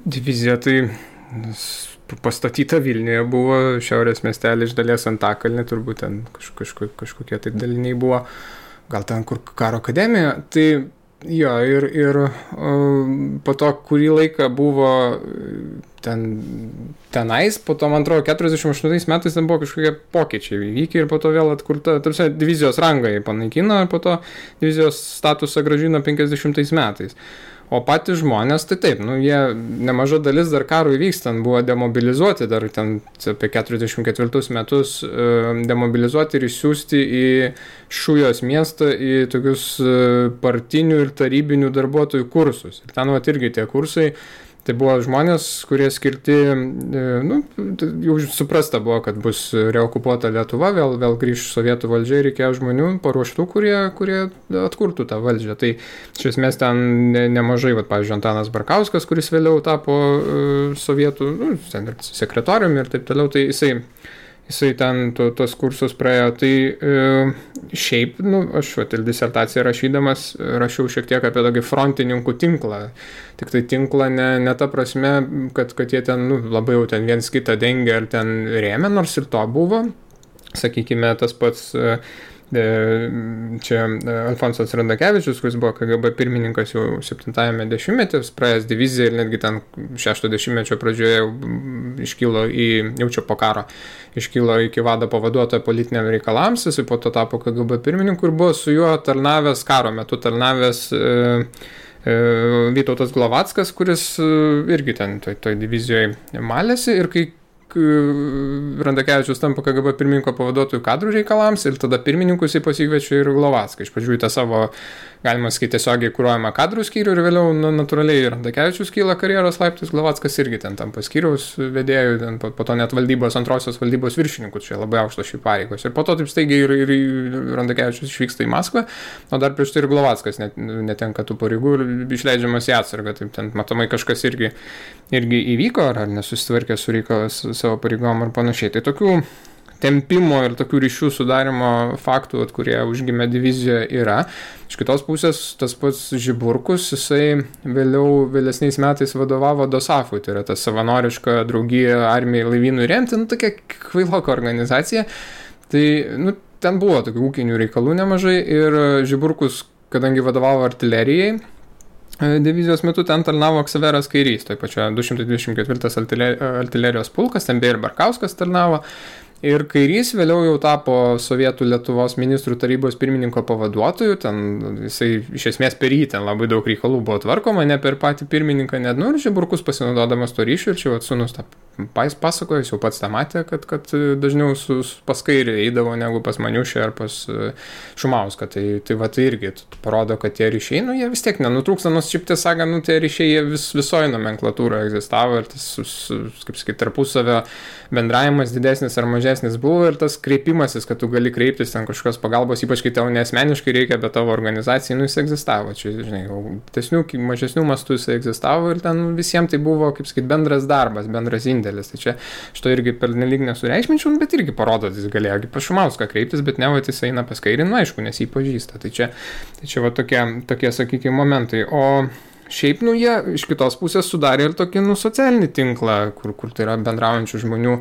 Divizija tai pastatyta Vilniuje buvo, šiaurės miestelį iš dalies Antakalnį, turbūt ten kažkokie tai daliniai buvo, gal ten kur karo akademija, tai jo, ir po to kurį laiką buvo tenais, po to, man atrodo, 48 metais ten buvo kažkokie pokyčiai įvykę ir po to vėl atkurta, tarsi divizijos rangą jį panaikino ir po to divizijos statusą grąžino 50 metais. O patys žmonės, tai taip, jie nemaža dalis dar karo įvykstant buvo demobilizuoti, dar ten apie 44 metus demobilizuoti ir išsiųsti į Šujos miestą į tokius partinių ir tarybinių darbuotojų kursus. Ir ten irgi tie kursai, tai buvo žmonės, kurie skirti, jau suprasta buvo, kad bus reokupuota Lietuva, vėl grįš sovietų valdžia ir reikėjo žmonių paruoštų, kurie atkurtų tą valdžią. Tai iš esmės ten nemažai, pavyzdžiui, Antanas Barkauskas, kuris vėliau tapo sovietų sekretoriumi ir taip toliau, tai jisai ten tos kursus praėjo. Tai šiaip, aš disertaciją rašydamas rašiau šiek tiek apie tokį frontininkų tinklą. Tik tai tinklą ne ta prasme, kad jie ten labai jau ten viens kitą dengia ar ten rėmė, nors ir to buvo. Sakykime, tas pats čia Alfonsas Randakevičius, kuris buvo KGB pirmininkas jau 70-ame dešimtmetyje, praėjęs diviziją ir netgi ten 60-mečio pradžioje iškilo jau čia po karo, iškilo iki vado pavaduotojo politiniam reikalams, jis po to tapo KGB pirmininku ir buvo su juo tarnavęs karo metu, Vytautas Glovackas, kuris irgi ten toj divizijoje malėsi ir kai Randakevičius tampa KGB pirmininko pavaduotojų kadrų reikalams ir tada pirmininkus jį pasikviečia ir Glovacką. Iš pradžių į tą savo, galima sakyti, tiesiogiai kuruojamą kadrų skyrių ir vėliau natūraliai Randakevičius kyla karjeros laiptais, Glovackas irgi ten tampa skyriaus vedėjų, po to net antrosios valdybos viršininkų, čia labai aukštos šių pareigos. Ir po to taip staigiai ir Randakevičius išvyksta į Maskvą, o dar prieš tai ir Glovackas netenka tų pareigų ir išleidžiamas į atsargą. Taip ten matomai kažkas irgi įvyko ar nesusitvarkė su reikalas savo pareigom ar panašiai. Tai tokių tempimo ir tokių ryšių sudarimo faktų, kurie užgimė divizijoje yra. Iš kitos pusės, tas pats Žiburkus, jisai vėlesniais metais vadovavo Dosafui, tai yra ta savanoriška draugija armijai laivynų remti, tokia kvailoka organizacija. Tai, ten buvo tokių ūkinių reikalų nemažai ir Žiburkus, kadangi vadovavo artilerijai, divizijos metu ten tarnavo Ksaveras Kairys, tai pačioje 224 artilerijos pulkas, ten beje ir Barkauskas tarnavo. Ir Kairys vėliau jau tapo Sovietų Lietuvos ministrų tarybos pirmininko pavaduotoju, ten jisai iš esmės per jį ten labai daug reikalų buvo tvarkoma, ne per patį pirmininką, net, ir Žiburkus pasinaudodamas to ryšių, ir čia sūnus tą pasakojo, jis jau pats tą matė, kad dažniau pas Kairį eidavo negu pas Maniušį ar pas Šumauską, tai va tai irgi parodo, kad tie ryšiai, jie vis tiek nenutrūksta, nors šiaip tiesą sakant, tie ryšiai jie visoje nomenklatūroje egzistavo ir tas, kaip sakyti, tarpusavio bendravimas didesnis ar mažesnis buvo ir tas kreipimasis, kad tu gali kreiptis ten kažkokios pagalbos, ypač kai tau nesmeniškai reikia, bet tavo organizacijai, jis egzistavo. Čia, žinai, mažesnių mastų jis egzistavo ir ten visiems tai buvo, kaip sakyti, bendras darbas, bendras indėlis. Tai čia šito irgi per nelyg nesureikšminčiau, bet irgi parodo, jis galėjo pas Šumauską kreiptis, bet ne, jis eina pas Kairį, aišku, nes jį pažįsta. Tai čia va tokie, sakykime, momentai. O šiaip, jie iš kitos pusės sudarė ir tokį, socialinį tinklą, kur tai yra bendraujančių žmonių,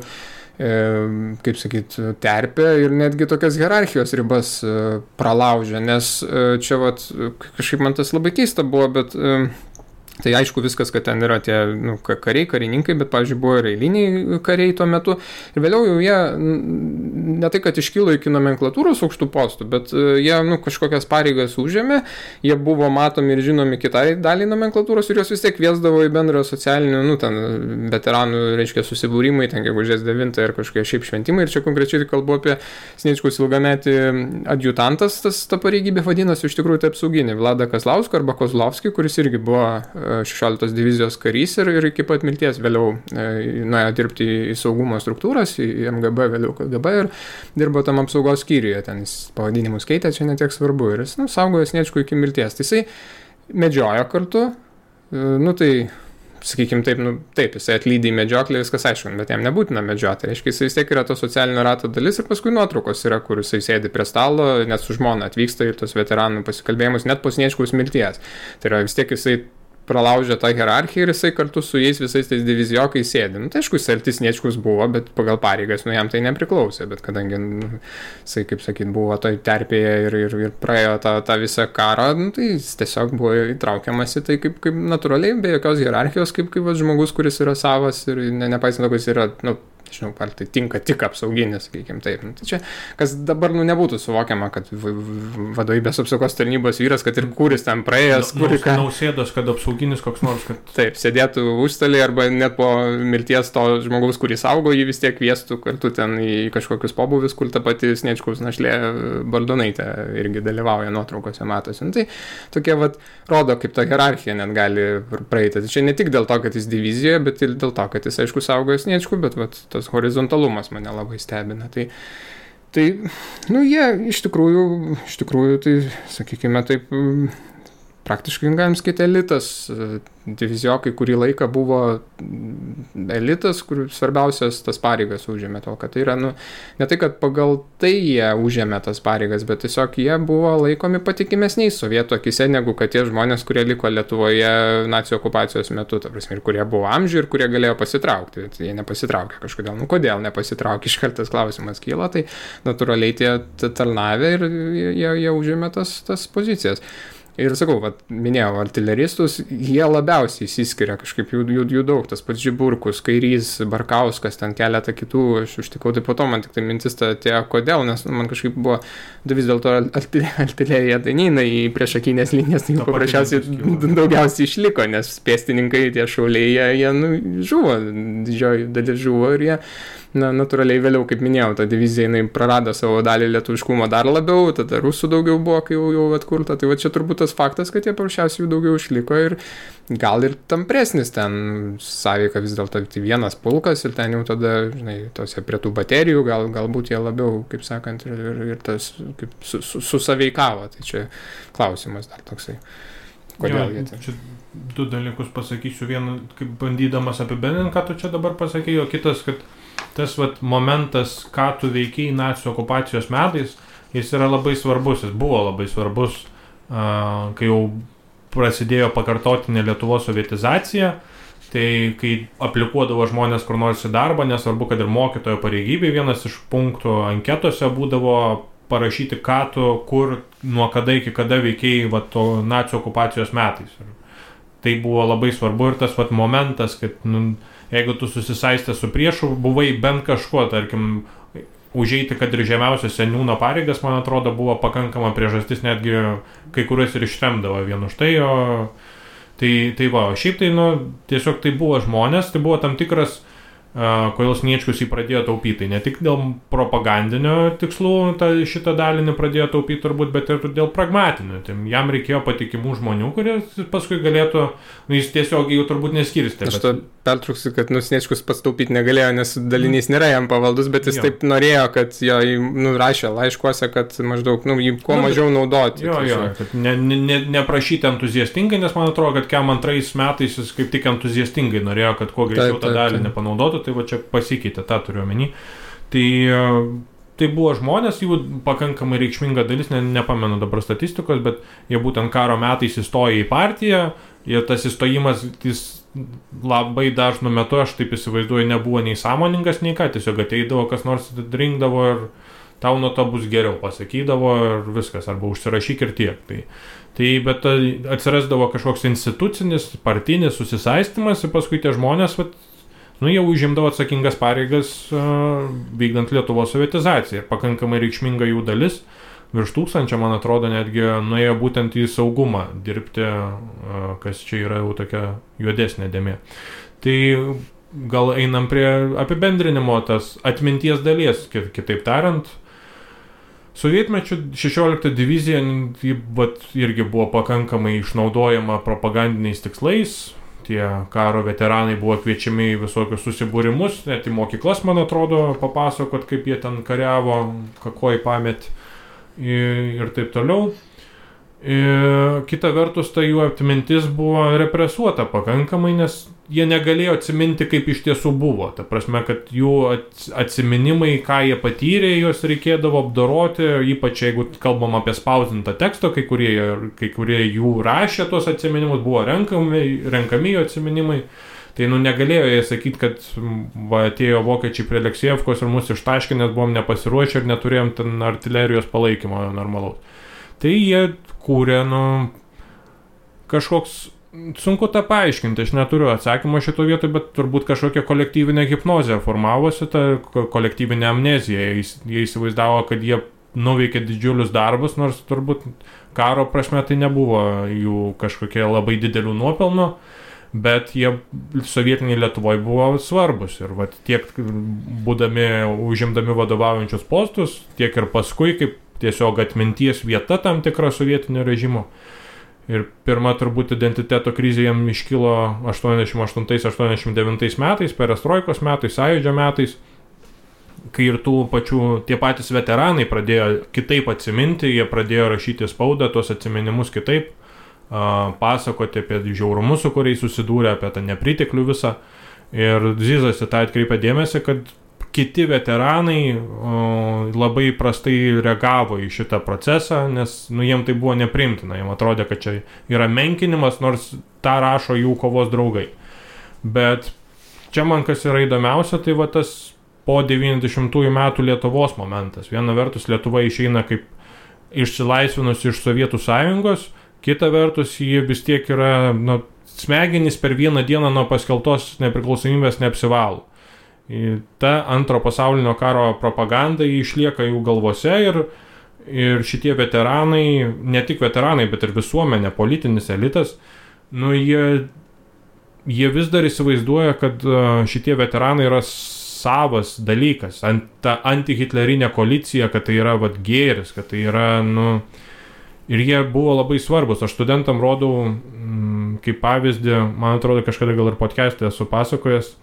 kaip sakyt, terpė ir netgi tokias hierarchijos ribas pralaužė, nes čia kažkaip man tas labai keista buvo, bet tai aišku viskas, kad ten yra tie kariai, karininkai, bet, pavyzdžiui, buvo ir eiliniai kariai tuo metu. Ir vėliau jau jie, ne tai, kad iškilo iki nomenklatūros aukštų postų, bet jie kažkokias pareigas užėmė, jie buvo matomi ir žinomi kitai daliai nomenklatūros ir jos vis tiek kviesdavo į bendrą socialinių, ten veteranų, reiškia, susibūrimai, ten gegužės 9 ir kažkokie šiaip šventimai. Ir čia konkrečiai kalbu apie Sniečkaus ilgametį adjutantas, ta pareigybė vadinasi iš tikrųjų tai apsauginė, Vladą Kazlauską arba Kozlovskį, kuris irgi buvo 16 divizijos karys ir iki pat mirties vėliau nuėjo dirbti į saugumo struktūras, į MGB, vėliau KGB ir dirbo tam apsaugos skyriuje, ten jis pavadinimus keitė, čia netiek svarbu ir jis saugojo Sniečkų iki mirties. Tai jisai medžiojo kartu, tai sakykime taip, jisai atlydi į medžioklę, viskas aišku, bet jam nebūtina medžioti, reiškia, jisai vis tiek yra to socialinio rato dalis ir paskui nuotraukos yra, kur jisai sėdi prie stalo, net su žmona atvyksta į tos veteranų pasikalbėjimus, net po Sniečkaus mirties. Tai yra vis tiek jisai pralaužė tą hierarchiją ir jisai kartu su jais visais tais divizijokais sėdi. Tai aišku, jis artis Sniečkus buvo, bet pagal pareigas, jam tai nepriklausė, bet kadangi, jisai, kaip sakyt, buvo toj terpėje ir praėjo tą visą karą, tai jis tiesiog buvo įtraukiamas į tai kaip natūraliai, be jokios hierarchijos, kaip žmogus, kuris yra savas ir nepaisant to, kad jis yra, nežinau, ar tai tinka tik apsauginis, sakykime taip. Tai čia, kas dabar nebūtų suvokiama, kad vadovybės apsaugos tarnybos vyras, kad ir kuris ten praėjęs,
Nausėdos, kad apsauginis koks nors, kad...
Taip, sėdėtų užstalį arba net po mirties to žmogaus, kurį saugo, jį vis tiek kviestų kartu ten į kažkokius pobūvius, kur ta pati Sniečkaus našlė Baldonaitė irgi dalyvauja nuotraukose, matosi. Tai tokie rodo, kaip ta hierarchija net gali praeiti. Tai čia ne tik dėl to, kad jis divizijoje, bet ir dėl to, kad jis, aišku, saugoja Sniečkų, bet tas horizontalumas mane labai stebina. Tai jie iš tikrųjų, tai sakykime taip, praktiškai galim sakyti elitas. Divizijokai kurį laiką buvo elitas, kur svarbiausias tas pareigas užėmė to, kad tai yra, ne tai, kad pagal tai jie užėmė tas pareigas, bet tiesiog jie buvo laikomi patikimesniais sovietų akise, negu kad tie žmonės, kurie liko Lietuvoje nacių okupacijos metu, ta prasme, ir kurie buvo amžių ir kurie galėjo pasitraukti. Tai jie nepasitraukė kažkodėl. Kodėl nepasitraukė? Iškeltas klausimas kyla, tai natūraliai tie tarnavė ir jie užėmė tas pozicijas. Ir sakau, minėjau, artileristus, jie labiausiai įsiskiria, kažkaip jų daug, tas pats Žiburkus, Kairys, Barkauskas, ten keletą kitų, aš užtikau, tai po to man tik tai mintis atėjo, kodėl, nes man kažkaip buvo, vis dėlto artilerija tai neina į priešakinės linijas, tai paprasčiausiai daugiausiai išliko, nes pėstininkai, tie šauliai, jie žuvo, didžioji dalis žuvo ir jie, natūraliai vėliau, kaip minėjau, ta divizija jinai prarado savo dalį lietuviškumo dar labiau, tada rusų daugiau buvo, kai jau atkurta, tai čia turbūt tas faktas, kad jie paprasčiausiai jų daugiau išliko ir gal ir tampresnis ten sąveika vis dėlto vienas pulkas ir ten jau tada, žinai, tose prie tų baterijų galbūt jie labiau, kaip sakant, ir tas kaip susąveikavo, tai čia klausimas dar toksai. Kodėl jie ten?
Čia du dalykus pasakysiu, vieną, kaip bandydamas apibendrinti, ką tu čia dabar pasakėjai, o kitas, kad tas momentas, ką tu veikiai nacių okupacijos metais, jis yra labai svarbus, jis buvo labai svarbus, kai jau prasidėjo pakartotinė Lietuvos sovietizacija, tai kai aplikuodavo žmonės kur nors į darbą, nesvarbu, kad ir mokytojo pareigybė, vienas iš punktų anketose būdavo parašyti, ką tu, kur, nuo kada iki kada veikiai to nacių okupacijos metais. tai buvo labai svarbu ir tas vat momentas, kad jeigu tu susisaistė su priešu, buvai bent kažkuo, tarkim, užeiti, kad ir žemiausias seniūno pareigas, man atrodo, buvo pakankama priežastis, netgi kai kuriuos ir ištremdavo vien už tai, tai va, šiaip tai, tiesiog tai buvo žmonės, tai buvo tam tikras, kodėl Sniečkus jį pradėjo taupyti. Ne tik dėl propagandinio tikslų šitą dalį pradėjo taupyti turbūt, bet ir dėl pragmatinių. Tai jam reikėjo patikimų žmonių, kurie paskui galėtų, jis tiesiog jų turbūt neskirstė.
Aš to pertrauksiu, kad Sniečkus pats taupyti negalėjo, nes dalinys nėra jam pavaldus, bet jis taip norėjo, kad jo rašė laiškuose, kad maždaug jį kuo mažiau naudoti.
Kad neprašyti entuziastingai, nes man atrodo, kad kem antrais metais jis kaip tik entuziastingai norėjo, kad kuo greičiau tą dalį nepanaudotų. Tai va čia pasikeitė, tą turiu omeny. Tai buvo žmonės, jų pakankamai reikšminga dalis, nepamenu dabar statistikos, bet jie būtent karo metais įstojo į partiją ir tas įstojimas, jis labai dažnu metu, aš taip įsivaizduoju, nebuvo nei sąmoningas, nei ką, tiesiog ateidavo, kas nors rinkdavo ir tau nuo to bus geriau, pasakydavo ir viskas, arba užsirašyk ir tiek. Bet atsirasdavo kažkoks institucinis, partinis susisaistymas ir paskui tie žmonės, jie užimdavo atsakingas pareigas vykdant Lietuvos sovietizaciją. Ir pakankamai reikšminga jų dalis, virš 1000, man atrodo, netgi nuėjo būtent į saugumą dirbti, kas čia yra jau tokia juodesnė dėmė. Tai gal einam prie apibendrinimo tas atminties dalies, kitaip tariant. Sovietmečių 16 divizija irgi buvo pakankamai išnaudojama propagandiniais tikslais. Tie karo veteranai buvo kviečiami į visokius susibūrimus, net į mokyklas, man atrodo, papasakot, kaip jie ten kariavo, kakoj pamet ir taip toliau. Kita vertus, ta jų atmintis buvo represuota pakankamai, nes jie negalėjo atsiminti, kaip iš tiesų buvo. Ta prasme, kad jų atsiminimai, ką jie patyrė, juos reikėdavo apdoroti, ypač jeigu kalbam apie spausdintą tekstą, kai kurie jų rašė tuos atsiminimus, buvo renkami jų atsiminimai. Tai negalėjo jie sakyti, kad atėjo vokiečiai prie Aleksejevkos ir mus ištaškė, nes buvom nepasiruošę ir neturėjom ten artilerijos palaikymo normalaus. Tai jie kūrė, kažkoks, sunku tą paaiškinti, aš neturiu atsakymą šito vietoj, bet turbūt kažkokia kolektyvinė hipnozė formavosi, ta kolektyvinė amnezija. Jie įsivaizdavo, kad jie nuveikė didžiulius darbus, nors turbūt karo prasme tai nebuvo jų kažkokie labai didelių nuopelnų, bet jie sovietiniai Lietuvoje buvo svarbus ir tiek užimdami vadovaujančius postus, tiek ir paskui kaip tiesiog atminties vieta tam tikra sovietinio režimo. Ir pirma turbūt identiteto krizė jam iškilo 88-89 metais, perestroikos metais, sąjūdžio metais, kai ir tie patys veteranai pradėjo kitaip atsiminti, jie pradėjo rašyti spaudą, tuos atsiminimus kitaip, pasakoti apie žiaurumus, su kuriais susidūrė, apie tą nepriteklių visą. Ir Zizas į tą atkreipė dėmesį, kad kiti veteranai labai prastai reagavo į šitą procesą, nes jiem tai buvo nepriimtina, jiem atrodė, kad čia yra menkinimas, nors tą rašo jų kovos draugai. Bet čia man kas yra įdomiausia, tai tas po 90-ųjų metų Lietuvos momentas. Viena vertus Lietuva išeina kaip išsilaisvinusi iš Sovietų sąjungos, kita vertus jie vis tiek yra, smegenys per vieną dieną nuo paskeltos nepriklausomybės neapsivalo. Ta antro pasaulinio karo propaganda išlieka jų galvose ir šitie veteranai, ne tik veteranai, bet ir visuomenė, politinis elitas, jie vis dar įsivaizduoja, kad šitie veteranai yra savas dalykas, ta antihitlerinė koalicija, kad tai yra gėris, kad tai yra, ir jie buvo labai svarbus. Aš studentam rodau kaip pavyzdį, man atrodo, kažkada gal ir podcast'e esu pasakojęs,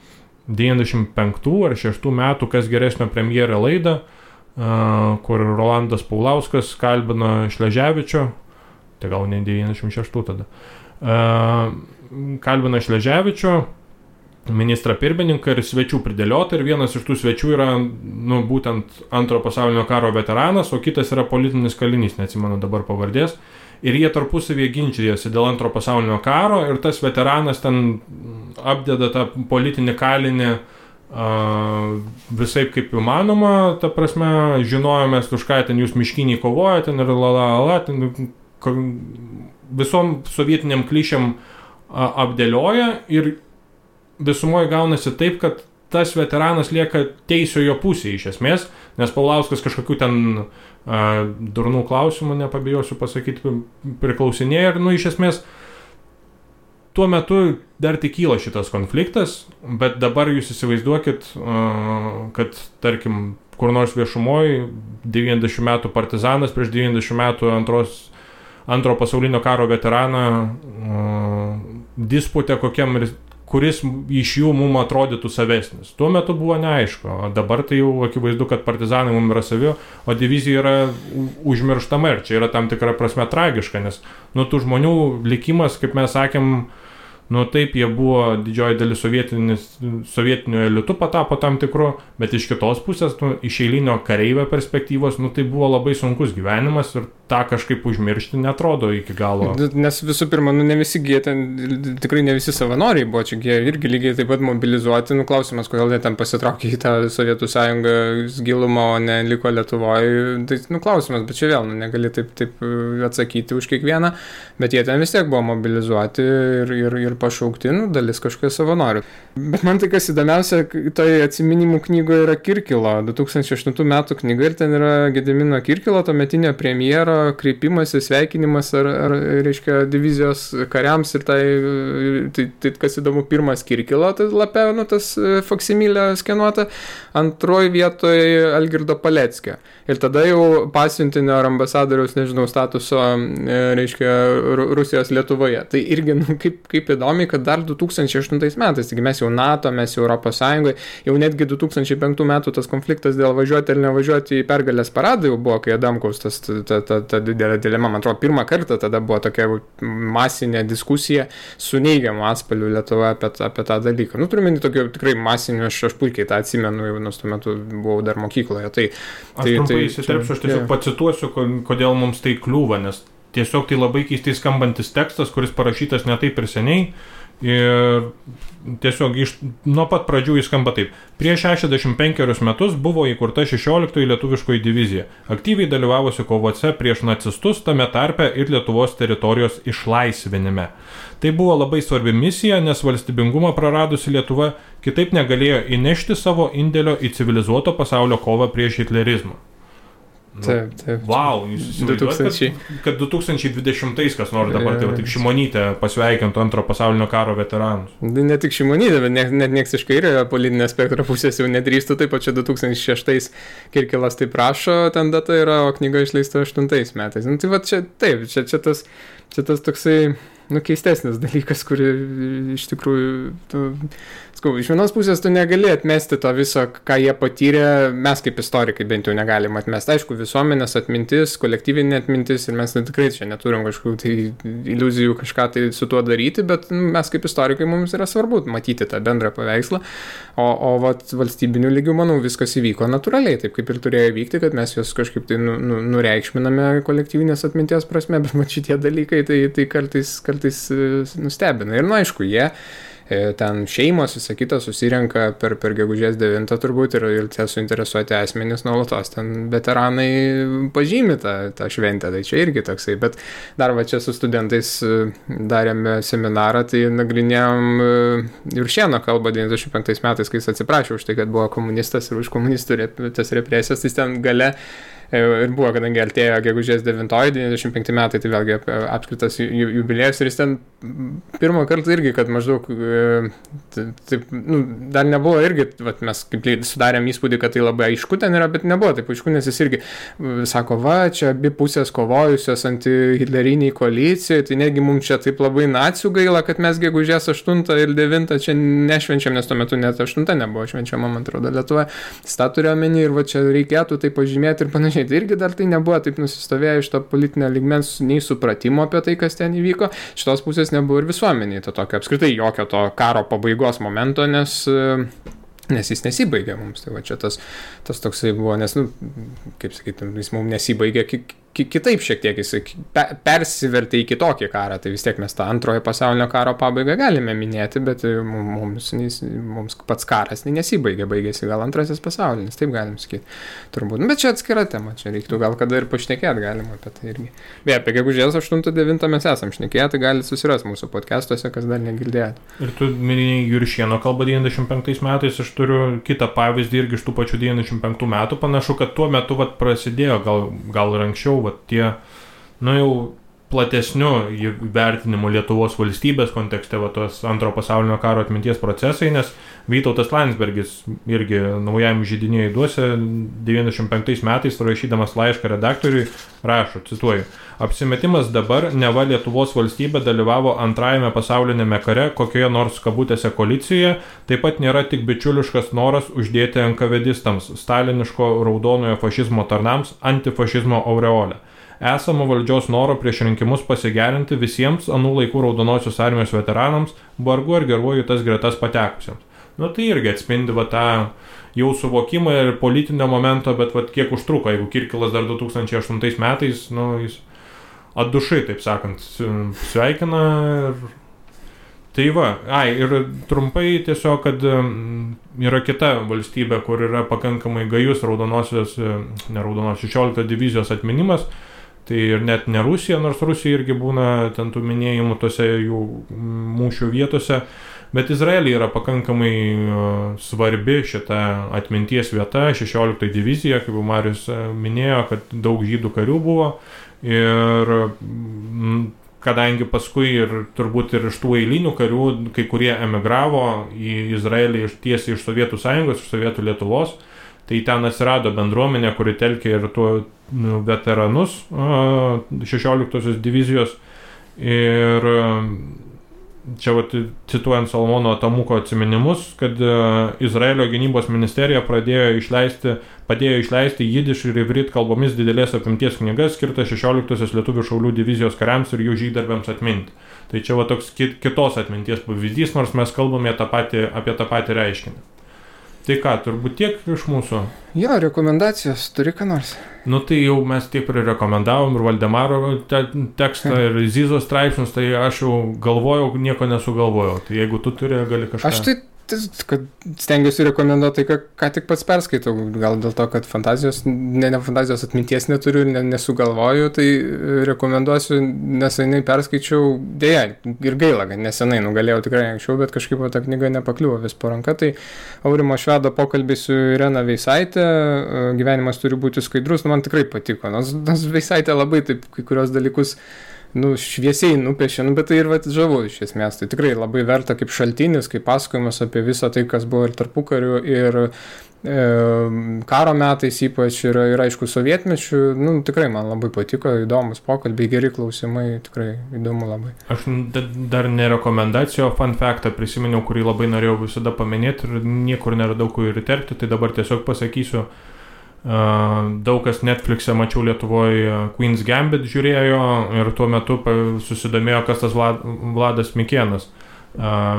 95 ar 6 metų Kas geresnio premjerė laidą, kur Rolandas Paulauskas kalbino Šleževičio, tai gal ne 96 tada, kalbino Šleževičio, ministrą pirmininką ir svečių pridėliota, ir vienas iš tų svečių yra būtent antro pasaulinio karo veteranas, o kitas yra politinis kalinys, neatsimenu dabar pavardės. Ir jie tarpusavėje ginčijasi dėl antro pasaulinio karo ir tas veteranas ten apdeda tą politinį kalinį visaip kaip įmanoma, ta prasme, žinojomės, už ką ten jūs miškiniai kovojate, ten ir visom sovietiniam klišėm apdėlioja ir visumoje gaunasi taip, kad tas veteranas lieka teisiojo pusėje iš esmės, nes Paulauskas kažkokių ten durnų klausimų, nepabijosiu pasakyti, priklausinėja ir, iš esmės, tuo metu dar tik kyla šitas konfliktas, bet dabar jūs įsivaizduokit, kad, tarkim, kur nors viešumoje 90 metų partizanas prieš 90 metų antro pasaulinio karo veteraną disputė kokiam kuris iš jų mums atrodytų savesnis. Tuo metu buvo neaišku, o dabar tai jau akivaizdu, kad partizanai mums yra savi, o divizija yra užmirštama ir čia yra tam tikra prasme tragiška, nes tų žmonių likimas, kaip mes sakėm, taip, jie buvo didžioji dalis sovietinių elitų patapo tam tikru, bet iš kitos pusės, iš eilinio kareivio perspektyvos, tai buvo labai sunkus gyvenimas ir tą kažkaip užmiršti netrodo iki galo.
Nes visų pirma, ne visi jie ten, tikrai ne visi savanoriai buvo, čia jie irgi lygiai taip pat mobilizuoti, klausimas, kodėl jie ten pasitraukė į tą Sovietų sąjungos gilumą, o ne liko Lietuvoje, tai klausimas, bet čia vėl, negali taip atsakyti už kiekvieną, bet jie ten vis tiek buvo mobilizuoti ir pašaukti, dalis kažkokie savanorių. Bet man tai kas įdomiausia, toje atsiminimų knygoje yra Kirkilo, 2008 metų knyga ir ten yra Gedimino Kirkilo, tuometinio premjero kreipimasis, sveikinimas ar reiškia divizijos kariams ir tai kas įdomu, pirmas Kirkilo, tai lapė, tas faksimilė skenuota, antroji vietoje Algirdo Paleckio. Ir tada jau pasiuntinio ar ambasadoriaus, statuso, reiškia, Rusijos Lietuvoje. Tai irgi, kaip įdomiai, kad dar 2008 metais, taigi mes jau NATO, mes jau Europos Sąjungoje, jau netgi 2005 metų tas konfliktas dėl važiuoti ar nevažiuoti į pergalės paradą jau buvo, kai Adamkaus ta didelė dilema, man atrodo, pirmą kartą tada buvo tokia masinė diskusija su neigiamu atspalviu Lietuvoje apie tą dalyką. Turime tokio tikrai masinio, aš puikiai tą atsimenu, jau tuo metu buvau dar mokykloje.
Aš trumpai įsiterpsiu, aš tiesiog pacituosiu, kodėl mums tai kliūva, nes tiesiog tai labai keistai skambantis tekstas, kuris parašytas ne taip ir seniai. Ir tiesiog nuo pat pradžių jis skamba taip. Prieš 65 metus buvo įkurta 16 lietuviškoji divizija, aktyviai dalyvavusi kovose prieš nacistus, tame tarpe ir Lietuvos teritorijos išlaisvinime. Tai buvo labai svarbi misija, nes valstybingumą praradusi Lietuva kitaip negalėjo įnešti savo indėlio į civilizuoto pasaulio kovą prieš hitlerizmą.
Taip.
Wow, jūs įsivaizduojate, kad 2020 kas nors dabar, tai tik Šimonytė pasveikintų antro pasaulinio karo veteranus.
Ne tik Šimonytė, bet net nieks iš kairiojo politinio spektro pusės jau nedrįstų, taip pat čia 2006 Kirkilas taip prašo, ten data yra, o knyga išleista 8 metais. Tai va čia taip, čia tas toksai, keistesnis dalykas, kuri iš tikrųjų, iš vienos pusės tu negali atmesti to viso, ką jie patyrė, mes kaip istorikai bent jau negalim atmesti. Aišku, visuomenės atmintis, kolektyvinė atmintis ir mes tikrai čia neturim kažkokių tai iliuzijų kažką tai su tuo daryti, bet mes kaip istorikai mums yra svarbu matyti tą bendrą paveikslą, o valstybiniu lygiu, manau, viskas įvyko natūraliai, taip kaip ir turėjo vykti, kad mes juos kažkaip tai nureikšminame kolektyvinės atminties prasme, bet šitie dalykai tai kartais nustebina. Ir aišku, jie ten šeimos, visą kitą susirenka per gegužės 9 turbūt ir tie suinteresuoti asmenys nuolatos ten veteranai pažymi tą šventę, tai čia irgi toksai, bet dar čia su studentais darėme seminarą, tai nagrinėjom Juršėno kalbą 95 metais, kai jis atsiprašė už tai, kad buvo komunistas ir už komunistų tas represijas, tai ten gale ir buvo, kadangi artėjo gegužės 9-95 metai, tai vėlgi apskritas jubiliejus ir jis ten pirmą kartą irgi, kad maždaug taip, dar nebuvo irgi, mes kaip sudarėm įspūdį, kad tai labai aišku ten yra, bet nebuvo taip aišku, nes jis irgi sako, čia abi pusės kovojusios anti-hitleriniai koalicijoje, tai negi mums čia taip labai nacių gaila, kad mes gegužės 8 ir 9 čia nešvenčiam, nes tuo metu net 8 nebuvo švenčiama, man atrodo, Lietuvoje. Tą turėjo omeny ir čia reikėtų tai pažymėti ir panašiai. Tai irgi dar tai nebuvo taip nusistovėję iš to politinio lygmens nei supratimo apie tai, kas ten įvyko. Šitos pusės nebuvo ir visuomeniai to tokio apskritai jokio to karo pabaigos momento, nes jis nesibaigė mums. Tai čia tas toksai buvo, nes, kaip sakyti, jis mums nesibaigė kitaip šiek tiek jisai persivertė į kitokį karą, tai vis tiek mes tą antrojo pasaulinio karo pabaigą galime minėti, bet mums pats karas nesibaigė, baigėsi gal antrasis pasaulinis, taip galim sakyti. Turbūt, bet čia atskira tema, čia reiktų gal kada ir pašnekėti galima apie tai irgi. Beje, apie gegužės 8-9 mes esam šnekėję, tai galite susirasti mūsų podcastuose, kas dar negirdėjote.
Ir tu minėjai Juršieno kalbą 95 metais, aš turiu kitą pavyzdį irgi iš tų pačių 95 metų, panašu, kad tuo metu prasidėjo, gal ir anksčiau, tie, jau platesnių vertinimų Lietuvos valstybės kontekste, tos antro pasaulinio karo atminties procesai, nes Vytautas Landsbergis irgi naujam židinėjui duose 95 metais, rašydamas laišką redaktoriui, rašo, cituoju, apsimetimas dabar, neva Lietuvos valstybė dalyvavo antrajame pasaulinėme kare kokioje nors kabutėse koalicijoje, taip pat nėra tik bičiuliškas noras uždėti NKVDistams, staliniško raudonojo fašizmo tarnams, antifašizmo aureolę. Esamo valdžios noro prieš rinkimus pasigerinti visiems anų laikų raudonosios armijos veteranams, vargu ar geruoju tas gretas patekusiems. Tai irgi atspindi tą jau suvokimą ir politinio momento, bet kiek užtruko, jeigu Kirkilas dar 2008 metais, jis atdušai, taip sakant, sveikina ir... Tai ir trumpai tiesiog, kad yra kita valstybė, kur yra pakankamai gajus raudonosios 16 divizijos atminimas, tai ir net ne Rusija, nors Rusija irgi būna ten tų minėjimų tose jų mūšių vietose, bet Izraelija yra pakankamai svarbi šita atminties vieta, 16 divizija, kaip Marius minėjo, kad daug žydų karių buvo ir kadangi paskui ir turbūt ir iš tų eilinių karių, kai kurie emigravo į Izraelį tiesiai iš Sovietų Sąjungos, iš Sovietų Lietuvos, tai ten atsirado bendruomenė, kuri telkė ir tuo veteranus 16 divizijos. Ir čia cituojant Salmono Tamuko atsiminimus, kad Izraelio gynybos ministerija padėjo išleisti jidiš ir ivrit kalbomis didelės apimties knygas skirtas 16 lietuvių šaulių divizijos kariams ir jų žygdarbiams atminti. Tai čia toks kitos atminties pavyzdys, nors mes kalbame apie tą patį reiškinį. Tai ką, turbūt tiek iš mūsų?
Jo, rekomendacijos, turi ką nors?
Tai jau mes tiek rekomendavom ir Valdemaro tekstą, ir Zizos straipsnius, tai aš jau galvojau, nieko nesugalvojau. Tai jeigu tu turi, gali kažką...
Aš kad stengiuosi rekomenduoti tai, ką tik pats perskaitau, gal dėl to, kad fantazijos atminties neturiu ir nesugalvoju, tai rekomenduosiu, nesenai perskaičiau, dėja, ir gaila, kad nesenai, galėjau tikrai anksčiau, bet kažkaip ta knyga nepakliuvo vis po ranka, tai Aurimo Švedo pokalbis su Irena Veisaitė, gyvenimas turi būti skaidrus, man tikrai patiko, nors Veisaitė labai taip kai kurios dalykus šviesiai nupiešė, bet tai ir žavu iš esmės. Tai tikrai labai verta kaip šaltinis, kaip pasakojimas apie visą tai, kas buvo ir tarpukariu, ir karo metais ypač, ir aišku sovietmečių. Tikrai man labai patiko, įdomus pokalbiai, geri klausimai, tikrai įdomu labai.
Aš dar ne rekomendacijo, fun factą prisiminiau, kurį labai norėjau visada paminėti ir niekur neradau kur ir įterpti, tai dabar tiesiog pasakysiu. Daug kas Netflix'e mačiau Lietuvoje Queen's Gambit žiūrėjo ir tuo metu susidomėjo, kas tas Vladas Mikėnas,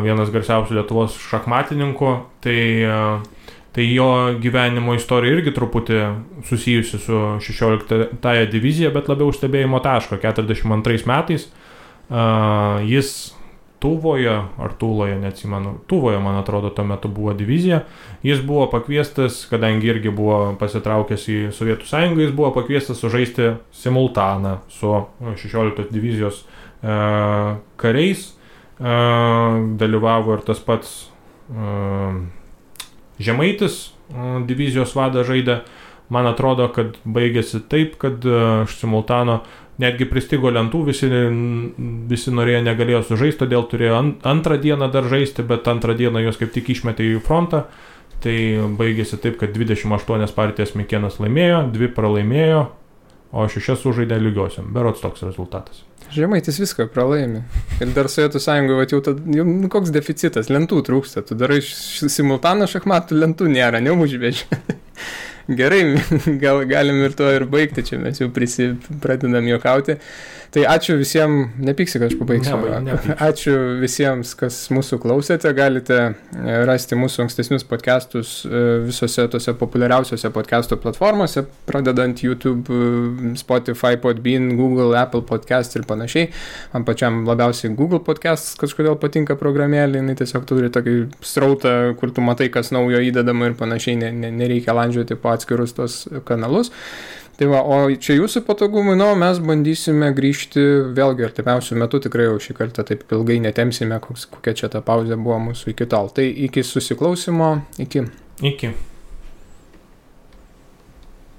vienas garsiausių Lietuvos šachmatininkų, tai jo gyvenimo istorija irgi truputį susijusi su 16 divizija, bet labiau stebėjimo taško. 42 metais jis Tuvoje, ar Tuloje, neatsimenu, Tuvoje, man atrodo, tuo metu buvo divizija. Jis buvo pakviestas, kadangi irgi buvo pasitraukęs į Sovietų Sąjungą, jis buvo pakviestas sužaisti simultaną su 16 divizijos kariais. Dalyvavo ir tas pats Žemaitis, divizijos vadą žaidė. Man atrodo, kad baigėsi taip, kad simultano netgi pristigo lentų, visi norėjo, negalėjo sužaisti, todėl turėjo antrą dieną dar žaisti, bet antrą dieną jos kaip tik išmetė į frontą. Tai baigėsi taip, kad 28 partijas Mikėnas laimėjo, 2 pralaimėjo, o 6 sužaidė lygiosiam. Berods toks rezultatas.
Žemaitis viską pralaimi. Ir dar Sovietų Sąjungoje jau koks deficitas, lentų trūksta. Tu darai simultaną šachmatų, lentų nėra, neužveži. Gerai, gal galim ir to ir baigti, čia mes jau pradedam juokauti. Tai ačiū visiems, nepyksi, kad aš pabaigsiu. Ačiū visiems, kas mūsų klausėte. Galite rasti mūsų ankstesnius podcastus visose tose populiariausiose podcastų platformose, pradedant YouTube, Spotify, Podbean, Google, Apple podcast ir panašiai. Man pačiam labiausiai Google podcast kažkodėl patinka programėlė, jinai tiesiog turi tokį srautą, kur tu matai, kas naujo įdedama ir panašiai, nereikia landžioti po atskirus tos kanalus. Tai va, o čia jūsų patogumui, mes bandysime grįžti vėlgi artimiausių metų, tikrai jau šį kartą taip ilgai netemsime, kokia čia ta pauzė buvo mūsų iki tol. Tai iki susiklausimo, iki.